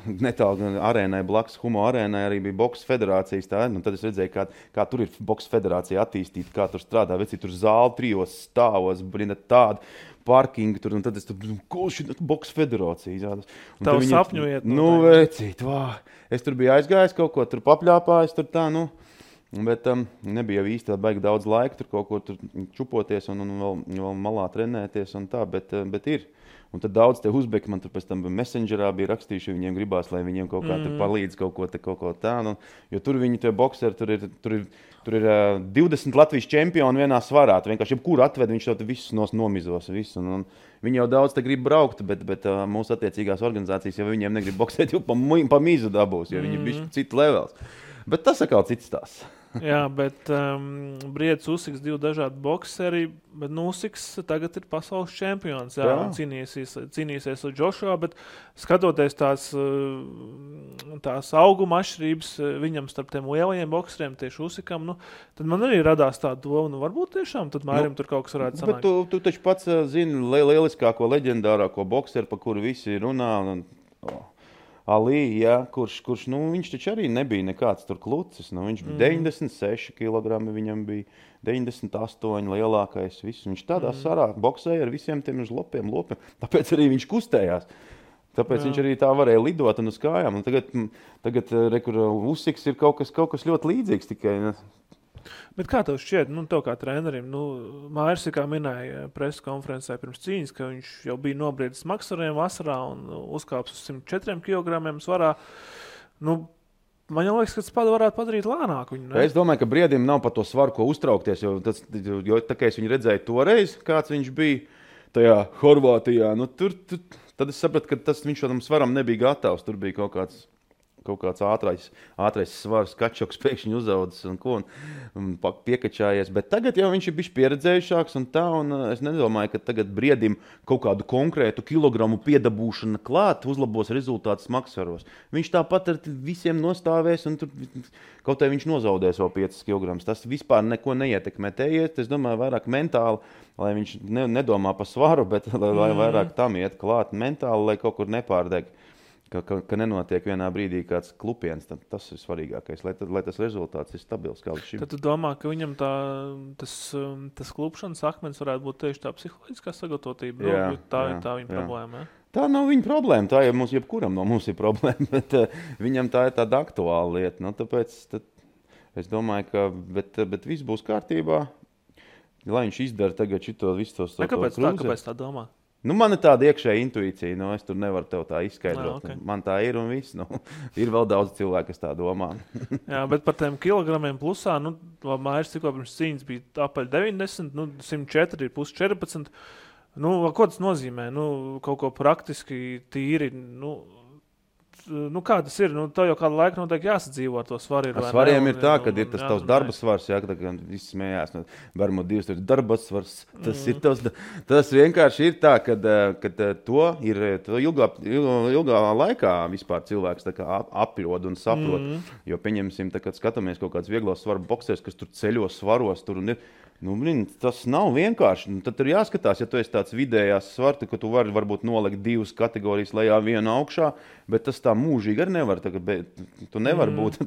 netālu arēnai, blakus Humo arēnai arī bija boks federācijas. Tad es redzēju, kā tur ir boks federācija attīstīta, kā tur strādā, veci tur zāli 3 stāvos, tādi. Parkingu tur, un tad es tur, ko šī boks federācija. Tavu sapņu iet. Vecīt, es tur biju aizgājis kaut ko, tur papļāpājis, tur tā, bet nebija jau īsti baigi daudz laika tur kaut ko tur čupoties un vēl malā trenēties un tā, bet ir. Un tad daudz te uzbeki man tur pēc tam messengerā bija rakstījuši, viņiem gribās, lai viņiem kaut kā tur palīdz kaut ko tā. Jo tur viņi tie bokseri, tur ir 20 Latvijas čempioni vienā svarā. Vienkārši jebkuru atved, viņš to visus nomizos. Visu. Un viņi jau daudz te grib braukt, bet mūsu attiecīgās organizācijas jau viņiem negrib boksēt, jau pa mizu dabūs, jo viņi ir cits levels. Bet tas atkal cits tās. Jā, bet Briedis Usiks 2 dažādi bokseri, bet Usiks tagad ir pasaules čempions. Jā. Cīnīsies ar Džošua, bet skatoties tās auguma atšķirības viņam starp tiem lielajiem bokseriem, tieši Usikam, tad man arī radās tā doma, varbūt tiešām tad Mārim tur kaut kas varētu sanākt. Bet tu taču pats zini lieliskāko leģendārāko bokseru, par kuru visi runā. Ali, kurš viņš taču arī nebija nekāds tur klucis. Viņš bija 96 kg, viņam bija 98 lielākais. Viņš tādā sarā boksēja ar visiem tiem lopiem. Tāpēc arī viņš kustējās. Tāpēc viņš arī tā varēja lidot un uz kājām. Un tagad Usiks ir kaut kas ļoti līdzīgs tikai. Bet kā tev šķiet, tev kā trenerim, Māris, kā minēja preses konferencē pirms cīņas, ka viņš jau bija nobriedis maksariem vasarā un uzkāps uz 104 kg svarā. Man jau liekas, ka tas varētu padarīt lēnāku viņu. Ne? Es domāju, ka Briedim nav par to svaru, ko uztraukties, jo tā kā es viņu redzēju toreiz, kāds viņš bija tajā Horvātijā, tad es sapratu, ka viņš tam svaram nebija gatavs. Tur bija kaut kāds ātrais svars, kačoks pēkšņi uzaudzis un piekačājies. Bet tagad jau viņš ir bijis pieredzējušāks un es nedomāju, ka tagad Briedim kaut kādu konkrētu kilogramu piedabūšana klāt uzlabos rezultātus maksaros. Viņš tāpat ar visiem nostāvēs un tur kaut vai viņš nozaudēs vēl 5 kg. Tas vispār neko neietekmē. Te iet, es domāju, vairāk mentāli, lai viņš nedomā par svaru, bet lai vairāk tam iet klāt mentāli, lai kaut kur nepārdeg. Ka nenotiek vienā brīdī kāds klupiens, tas ir svarīgākais, lai tas rezultāts ir stabils kā līdz šim. Tad tu domā, ka viņam tas klupšanas akmens varētu būt tieši tā psiholoģiskā sagatavotība? Tā ir tā viņa problēma, ja? Tā nav viņa problēma, tā ir jebkuram no mums ir problēma, bet viņam tā ir tāda aktuāla lieta. Tāpēc es domāju, ka bet viss būs kārtībā, lai viņš izdara tagad visu tos Kāpēc tā domā? Man ir tāda iekšēja intuīcija, es tur nevaru tev tā izskaidrot. Okay. Man tā ir un viss. Ir vēl daudz cilvēku, kas tā domā. Jā, bet par tiem kilogramiem plusā, Māris tikko pirms cīņas bija apaļ 90, 104 ir plus 14. Ko tas nozīmē? Kaut ko praktiski tīri, nu, kā tas ir? Nu, tev jau kādu laiku noteikti jāsadzīvo ar to svaru. Ar svariem ir tā, ka ir tas tavs darba svars, jā, kad viss smējās. Varbūt 2 darba svars. Tas vienkārši ir tā, ka to ilgā laikā vispār cilvēks tā kā aprod un saprot. Jo, pieņemsim, kad skatāmies kaut kāds vieglos svaru boksers, kas tur ceļos svaros, tur un ir. Nu, tas nav vienkārši. Tad tur jāskatās, ja tu esi tāds vidējās svartu, ka tu vari varbūt nolikt 2 kategorijas lejā, 1 augšā, bet tas tā mūžīgi arī nevar. Tu nevar būt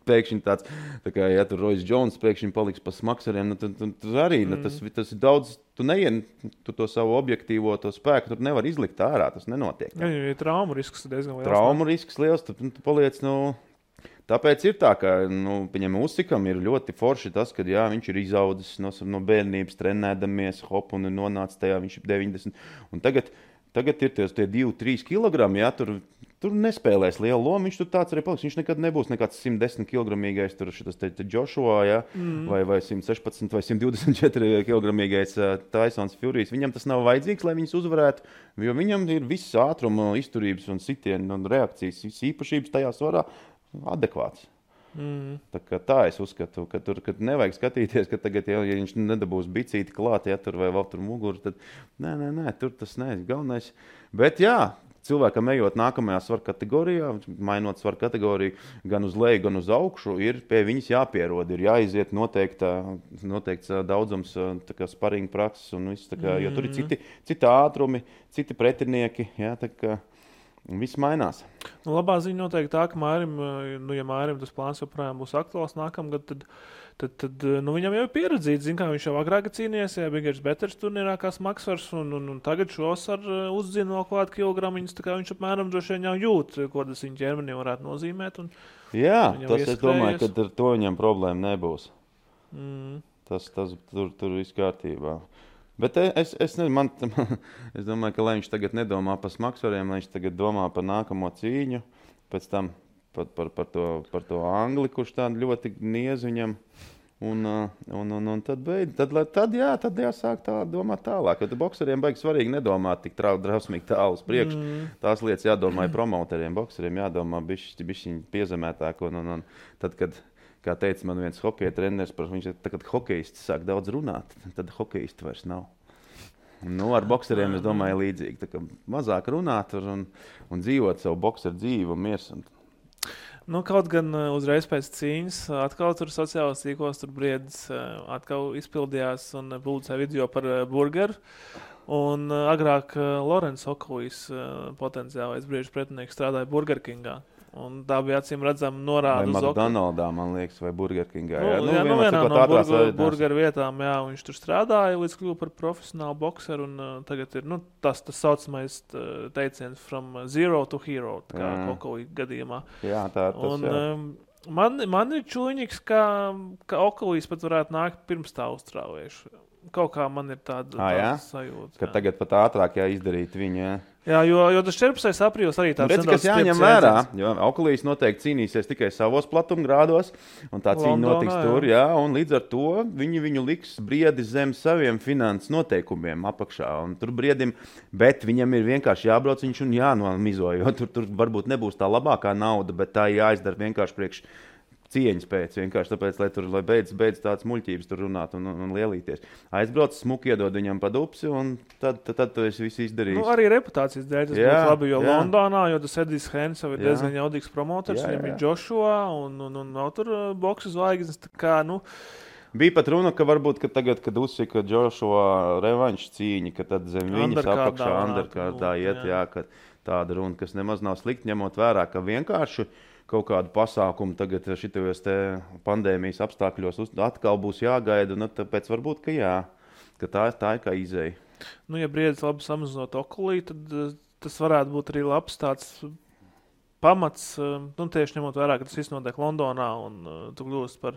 pēkšņi tāds, tā kā, ja tur Royce Jones pēkšņi paliks pa smakseriem, tad arī tas ir daudz, tu to savu objektīvo to spēku tur nevar izlikt ārā, tas nenotiek. Jā, ja traumu risks diezgan liels. Traumu risks liels, tu paliec, tāpēc ir tā, ka Ussikam ir ļoti forši tas, ka jā, viņš ir izaudzis no bērnības, trenēdamies, hop, un nonāca tajā, viņš ir 90. Un tagad ir tie 2-3 kilogrami, jā, tur nespēlēs lielu lomu, viņš tur tāds arī paliks. Viņš nekad nebūs nekāds 110 kilogramīgais, tur šitas Joshua, jā, vai 116 vai 124 kilogramīgais Tysons Furijas. Viņam tas nav vajadzīgs, lai viņus uzvarētu, jo viņam ir viss ātruma, izturības un sitienu un reakcijas, viss īpašības tajā svarā adekvāts. Tā es uzskatu, ka tur nevajag skatīties, ka tagad, ja viņš nedabūs bicīti klāt, ja tur vai vēl tur muguru, tad nē, tur tas neesmu galvenais. Bet jā, cilvēkam ejot nākamajā svaru kategorijā, mainot svaru kategoriju gan uz leju, gan uz augšu, ir pie viņas jāpierod, ir jāiziet noteikts daudzums sparinga prakses un viss, jo tur ir citi ātrumi, citi pretinieki, jā, tā kā viss mainās. Nu, labā ziņa noteikti tā, ka ja Mārim tas plāns joprojām būs aktuāls nākamgad, tad viņam jau ir pieredzīts, zin, kā viņš jau agrāk cīnījies, ja Bigers Betters turnīrā kā smagsvars, un tagad šos ar uzzina vēl klāt kilogramiņus, tā kā viņš apmēram droši vien jau jūt, ko tas viņa ķermenī varētu nozīmēt. Jā, tas es domāju, ka ar to viņam problēma nebūs. Tas tur viss kārtībā. Bet es domāju, ka lai viņš tagad nedomā par smagsvariem, lai viņš tagad domā par nākamo cīņu, pēc tam par to angli, kurš tādu ļoti niez viņam, un tad jāsāk domāt tālāk. Jo domāt baigi svarīgi nedomāt tik drausmīgi tālu uz priekšu. Tās lietas jādomā promoteriem, bokseriem jādomā bišķiņ piezemētāk, un tad, kad kā teica man viens hokeja treneris, kad hokejisti sāk daudz runāt, tad hokejisti vairs nav. Ar bokseriem, es domāju, līdzīgi. Tā kā mazāk runāt un dzīvot savu bokseru dzīvi un miers. Kaut gan uzreiz pēc cīņas atkal tur sociālās tīklos tur Briedis atkal izpildījās un publicēja video par burgeru. Un agrāk Lorenz Okolijs potenciālais briežu pretinieks strādāja Burger Kingā. Un tā bija acīm redzama norāda uz McDonaldā, man liekas, vai Burger Kingā. Vienā no burgeru vietām, jā, viņš tur strādāja, līdz kļuva par profesionālu bokseru, un tagad ir, tas saucamais teiciens from zero to hero, kā Okolī gadījumā. Jā, tā ir tas, jā. Man ir čuļņiks, ka Okolīs pat varētu nākt pirms tā uztrāvējuši. Kaut kā man ir tāda sajūta. Ka tagad pat ātrāk jāizdarīt viņa. Jā, jo tas 14. aprīlis arī tāds nedaudz kas jāņem vērā, jo Okolīs noteikti cīnīsies tikai savos platumgrādos, un tā cīņa notiks tur, jā, un līdz ar to viņu liks Briedi zem saviem finanses noteikumiem apakšā, un tur Briedim, bet viņam ir vienkārši jābrauc viņš un jānomizo, jo tur varbūt nebūs tā labākā nauda, bet tā jāizdara vienkārši priekš cieņas pēc, vienkārši tāpēc, lai beidz tāds muļķības tur runāt un lielīties. Aizbrauc, smuki iedod viņam pa dupsi, un tad tu esi visu izdarījis. Arī reputācijas dēļ tas būtu labi, jo Londonā, jo tas Edijs Hens jau ir diezgan jaudīgs promoters, viņam ir Joshua, un nav tur boksu zvaigznes, tā kā, Bija pat runa, ka varbūt, ka tagad, kad uzsika Joshua revanšu cīņa, ka tad zem viņas apakšā underkārdā iet, ka tāda runa, kas nemaz nav slikti, ņemot vērā, ka vienkārši kaut kādu pasākumu tagad šitajos te pandēmijas apstākļos atkal būs jāgaida, un tāpēc varbūt, ka tā ir kā izēja. Ja Briedis labi samazinot Okolī, tad tas varētu būt arī labs tāds pamats, tieši ņemot vērā, ka tas viss notiek Londonā, un tu kļūst par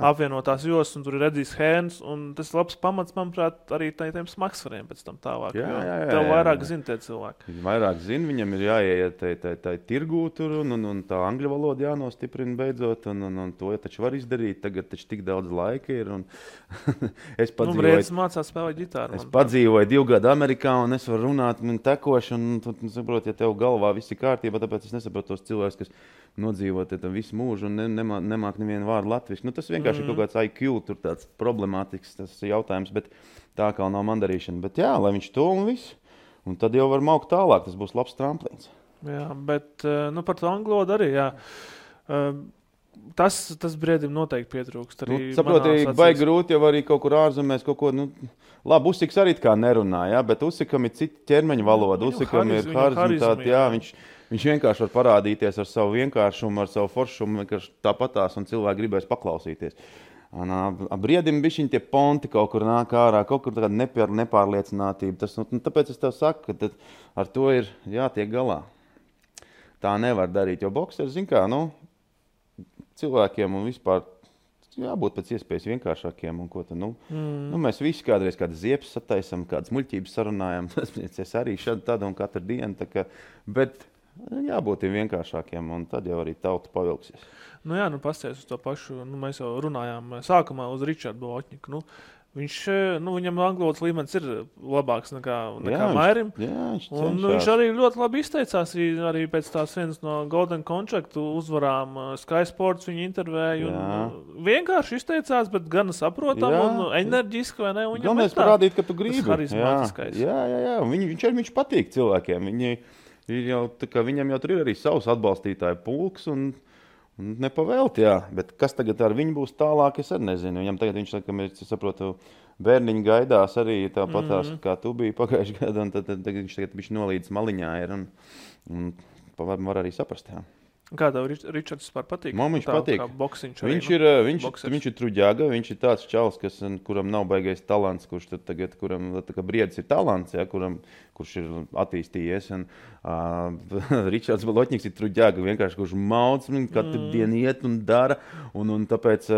apvienotās jostas, un tur ir Edijs Hēns, un tas ir labs pamats, manuprāt, arī tiem smagsvariem pēc tam tālāk. Tev vairāk zina tie cilvēki. Vairāk zina, viņam ir jāiet tai tirgū tur, un tā angļu valoda jānostiprina beidzot, un to taču var izdarīt. Tagad taču tik daudz laika ir, un es padzīvoju... Briedis mācās spēlēt ģitāru. Es padzīvoju 2 gadu Amerikā, un es varu runāt tekoši, un saprot, ja tev galvā viss ir kārtībā, tāpēc es nesaprotu, izmantot tos cilvēkus, kas nodzīvot visu mūžu un nemāk nevienu vārdu latviski. Nu, tas vienkārši ir kaut kāds IQ, tur tāds problemātisks tas jautājums, bet tā kā nav mandarīšana. Bet jā, lai viņš to un visu. Un tad jau var maukt tālāk, tas būs labs tramplīns. Jā, bet par to angļu valodu arī, jā. Tas briedim noteikti pietrūkst. Saproti, baigi grūti jau arī kaut kur ārzemēs kaut ko, labi, Usiks arī kā nerunā, jā, bet Usikam ir cita ķermeņa valoda, Usikam ir harizmitāte, jā, viņš vienkārši var parādīties ar savu vienkāršumu, ar savu foršumu, vienkārši tāpatās, un cilvēki gribēs paklausīties. Briedim bišķiņ tie ponti kaut kur nāk ārā, kaut kur tāda nepārliecinātība. Tāpēc es tev saku, ka ar to ir jātiek galā. Tā nevar darīt, jo boksers, zin kā, cilvēkiem un vispār jābūt pēc iespējas vienkāršākiem. Un ko tad, mēs visi kādreiz kādas ziepes sataisam, kādas muļķības sarunājam. Es arī šādi tādu un katru dienu. Bet jābūt vienkāršākiem, un tad jau arī tauta pavilksies. Pasties uz to pašu. Mēs jau runājām sākumā uz Ričardu Bolotņiku. Viņam anglotas līmenis ir labāks nekā Mairim. Viņš arī ļoti labi izteicās arī pēc tās vienas no Golden Contract uzvarām. Sky Sports viņu intervēju. Vienkārši izteicās, bet gan saprotam un enerģiski, vai ne? Galvenais parādīt, ka tu gribi. Tas harizmātiskais. Jā. Viņš patīk cilvēkiem. Viņam jau tur ir arī savs atbalstītāju pulks un nepavēlti, jā. Bet kas tagad ar viņu būs tālāk, es arī nezinu. Viņam tagad viņš saprotu, bērniņi gaidās arī tāpatās, kā tu biji pagājuši gadu, un tad viņš tagad nolīdz maliņā ir un var arī saprast, jā. Kā tev Ričards vispār patīk? Man viņš patīk. Viņš ir truģaga, viņš ir tāds čalis, kuram nav baigais talants, kurš tad tagad, kuram briedis ir talants, ja, kurš ir attīstījies. Ričards Bolotņiks ir truģaga, vienkārši kurš maudz, katru dienu iet un dara, un tāpēc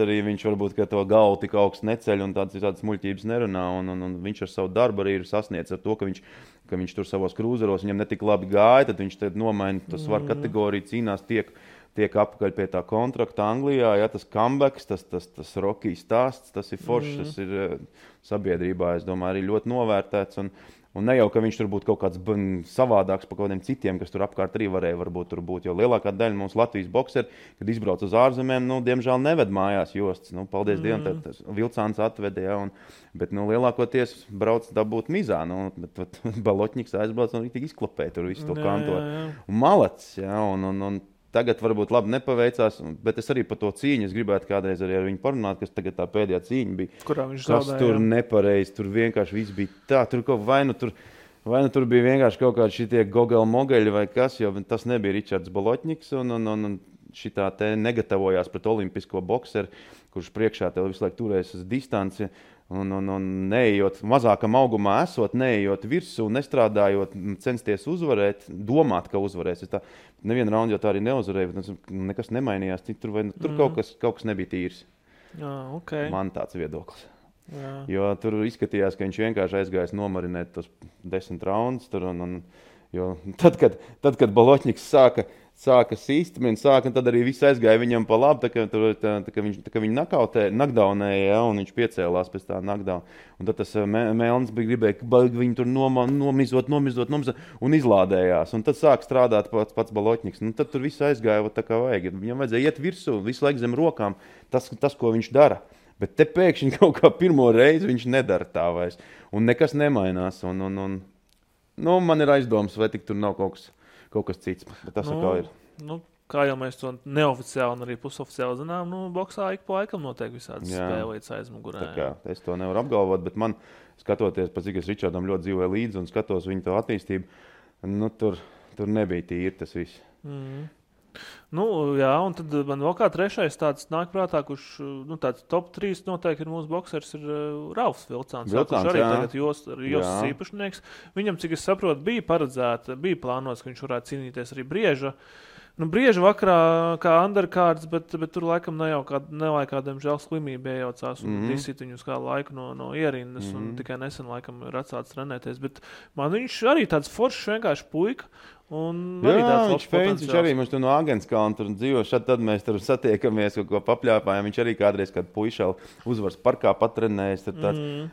arī viņš varbūt, ka to galvu tik augsts neceļ un tādas muļķības nerunā, un viņš ar savu darbu arī ir sasniedz ar to, ka viņš tur savos krūzeros, viņam netik labi gāja, tad viņš tad nomaina to svaru kategoriju, cīnās, tiek apakaļ pie tā kontrakta Anglijā, ja, tas comebacks, tas Rocky stāsts, tas ir foršs, tas ir sabiedrībā, es domāju, arī ļoti novērtēts, un ne jau, ka viņš tur būtu kaut kāds savādāks par kaut kādiem citiem, kas tur apkārt arī varēja varbūt tur būt, jo lielākā daļa mums Latvijas bokseri, kad izbrauc uz ārzemēm, diemžēl neved mājās jostas, paldies Dievam, tad Vilcāns atveda, ja, bet lielākoties brauc dabūt mizā, bet Bolotņiks aizbrauc un tik izklapēja tur visu to kantoru. Un malacis, ja, un tagad varbūt labi nepaveicās, bet es arī par to cīņu, es gribētu kādreiz arī ar viņu parunāt, kas tagad tā pēdējā cīņa bija. Kurā viņš zaudēja? Kas tur nepareizi, tur vienkārši viss bija tā, tur kaut vai nu tur bija vienkārši kaut kādi šitie gogeli-mogeļi vai kas, jo tas nebija Ričards Bolotņiks un šitā te negatavojās pret olimpisko bokseru, kurš priekšā tev visu laiku turēs uz distanci. Un neejot mazākam augumā esot, neejot virsū, nestrādājot, censties uzvarēt, domāt, ka uzvarēs. Nevienu raundu jau tā arī neuzvarēja, bet nekas nemainījās. Tur kaut kas nebija tīrs. Okay. Man tāds viedoklis. Jā. Jo tur izskatījās, ka viņš vienkārši aizgājis nomarinēt tos 10 raundus. Jo tad, kad Bolotņiks sāka sīst, tad arī viss aizgāja viņam pa labi, tā ka viņu nakdaunēja, ja, un viņš piecēlās pēc tā nakdauna. Un tad tas Melns gribēja viņu tur nomizot un izlādējās. Un tad sāk strādāt pats Bolotņiks. Tad tur viss aizgāja tā kā vajag. Viņam vajadzēja iet virsū, visu laiku zem rokām, tas, ko viņš dara. Bet te pēkšņi kaut kā pirmo reizi viņš nedara tā vairs. Un nekas nemainās. Man ir aizdomas, vai tik tur nav kaut kas cits, bet tas kā ir. Kā jau mēs to neoficiāli un arī pusoficiāli zinām, boksā ik pa laikam notiek visādas spēlītas aizmugurē. Es to nevaru apgalvot, bet man, skatoties, pēc cik es Ričardam ļoti dzīvoju līdzi un skatos viņu to attīstību, tur nebija tīri tas viss. Jā, un tad man vēl kā trešais tāds nāk prātā, kurš tāds top 3 noteikti ir mūsu boksers, ir Ralfs Vilcāns, kurš arī tagad Josas īpašnieks. Viņam, cik es saprotu, bija plānots, ka viņš varētu cīnīties arī Brieža. Brieža vakarā kā undercards, bet tur laikam nevajag kādiem žēl slimību iejaucās un disīt viņus kādu laiku no ierindas un tikai nesen laikam ir atsācis trenēties. Bet man viņš arī tāds foršs vienkārši puika Jā, viņš arī mums tur no Agenskalna tur dzīvo. Tad mēs tur satiekamies, kaut ko papļāpājam. Viņš arī kādreiz kādu puišalu uzvaras parkā patrenējis.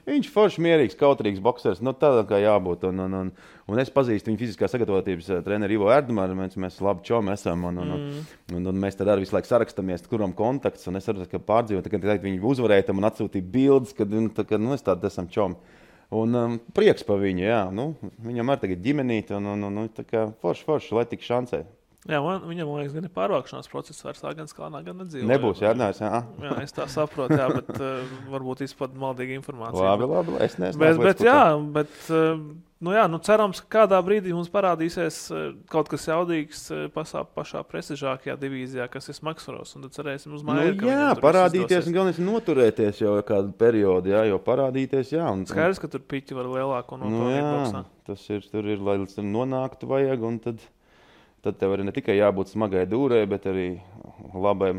Viņš forši mierīgs, kautrīgs boksers. Tādā kā jābūt. Un es pazīstu viņu fiziskā sagatavotības treneri Ivo Erdmāru. Mēs labi čomi esam. Un mēs tad arī visu laiku sarakstāmies, kuram kontakts. Un es arī pārdzīvoju, kad viņi uzvarēja un atsūtīja bildes, kad es tādi esam čomi. Un prieks par viņu, jā. Viņam arī tagad ģimenīte, un tā kā forši, lai tik šancē. Jā, viņam, man liekas, gan ir pārvākšanās process vairs Agenskalnā, gan nedzīvo. Nebūs, jādinājās, jā. Jā, es tā saprotu, jā, bet varbūt izpad maldīga informācija. Labi, es nezinu. Bet cerams, ka kādā brīdī mums parādīsies kaut kas jaudīgs pašā prestižākajā divīzijā, kas ir Smagsvaros, un tad cerēsim uz māju. Jā, parādīties un galvenais noturēties jau kādu periodu, jā, jo parādīties, jā. Skaidrs, ka tur piķi var lielāku nopelnīt boksā. Tas ir, tur ir, lai nonāktu vajag, un tad tev arī ne tikai jābūt smagai dūrē, bet arī labi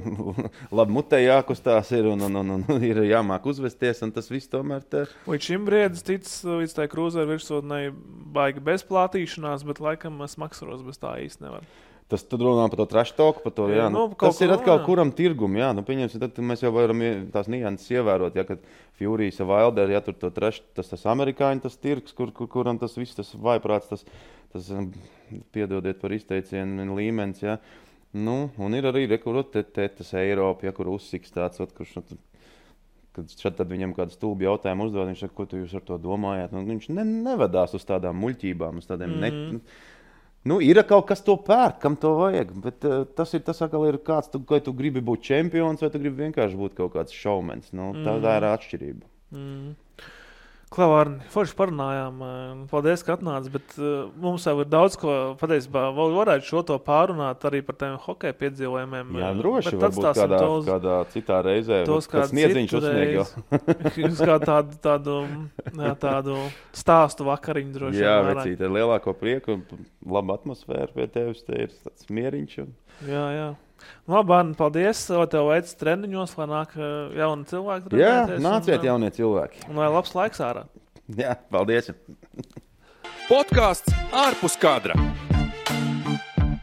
mutē jākustās ir un ir jāmāk uzvesties, un tas viss tomēr te. Līdz šim briedis ticis līdz tai krūzeru virsotnei baigi bezplātīšanās, bet laikam Smagsvaros bez tā īsti nevar. Tas tad runā par to trash talku, par to, jā. Tas ir atkal kuram tirgum, jā. Pieņemsim, tad mēs jau varam tās nianses ievērot, ja, kad Furijas Wilder, ja tur to trash, tas amerikāņu tas tirgs, kuram tas viss, tas vaiprāts, tas piedodiet par izteicienu līmenis, ja. Un ir arī tas Eiropa, ja, kur uzsiks tāds, kurš, kad šad tad viņam kādu stulbu jautājumu uzdod, viņš saka, ko tu jūs ar to domājāt? Viņš nevedās uz tādām muļķībām, uz tādiem ir kaut kas to pērk, kam to vajag, bet tas atkal ir kāds, vai tu gribi būt čempions, vai tu gribi vienkārši būt kaut kāds šaumens. Tā ir atšķirība. Klavārni, forši parunājām. Paldies, ka atnāc, bet mums jau ir daudz ko patiesībā. Varētu šo to pārunāt arī par tiem hokeja piedzīvojumiem. Jā, droši, varbūt kādā citā reizē. Tos kāds sniedziņš uzsnieg jau. Uz tādu stāstu vakariņu droši. Jā, vecīt, ar lielāko prieku, laba atmosfēra pie tevis, te ir tāds mieriņš. Jā. Labi, Arni, paldies. Tev veids treniņos, lai nāk jauni cilvēki. Jā, nāciet jaunie cilvēki. Un lai labs laiks ārā. Jā, paldies. Podcasts ārpus kadra.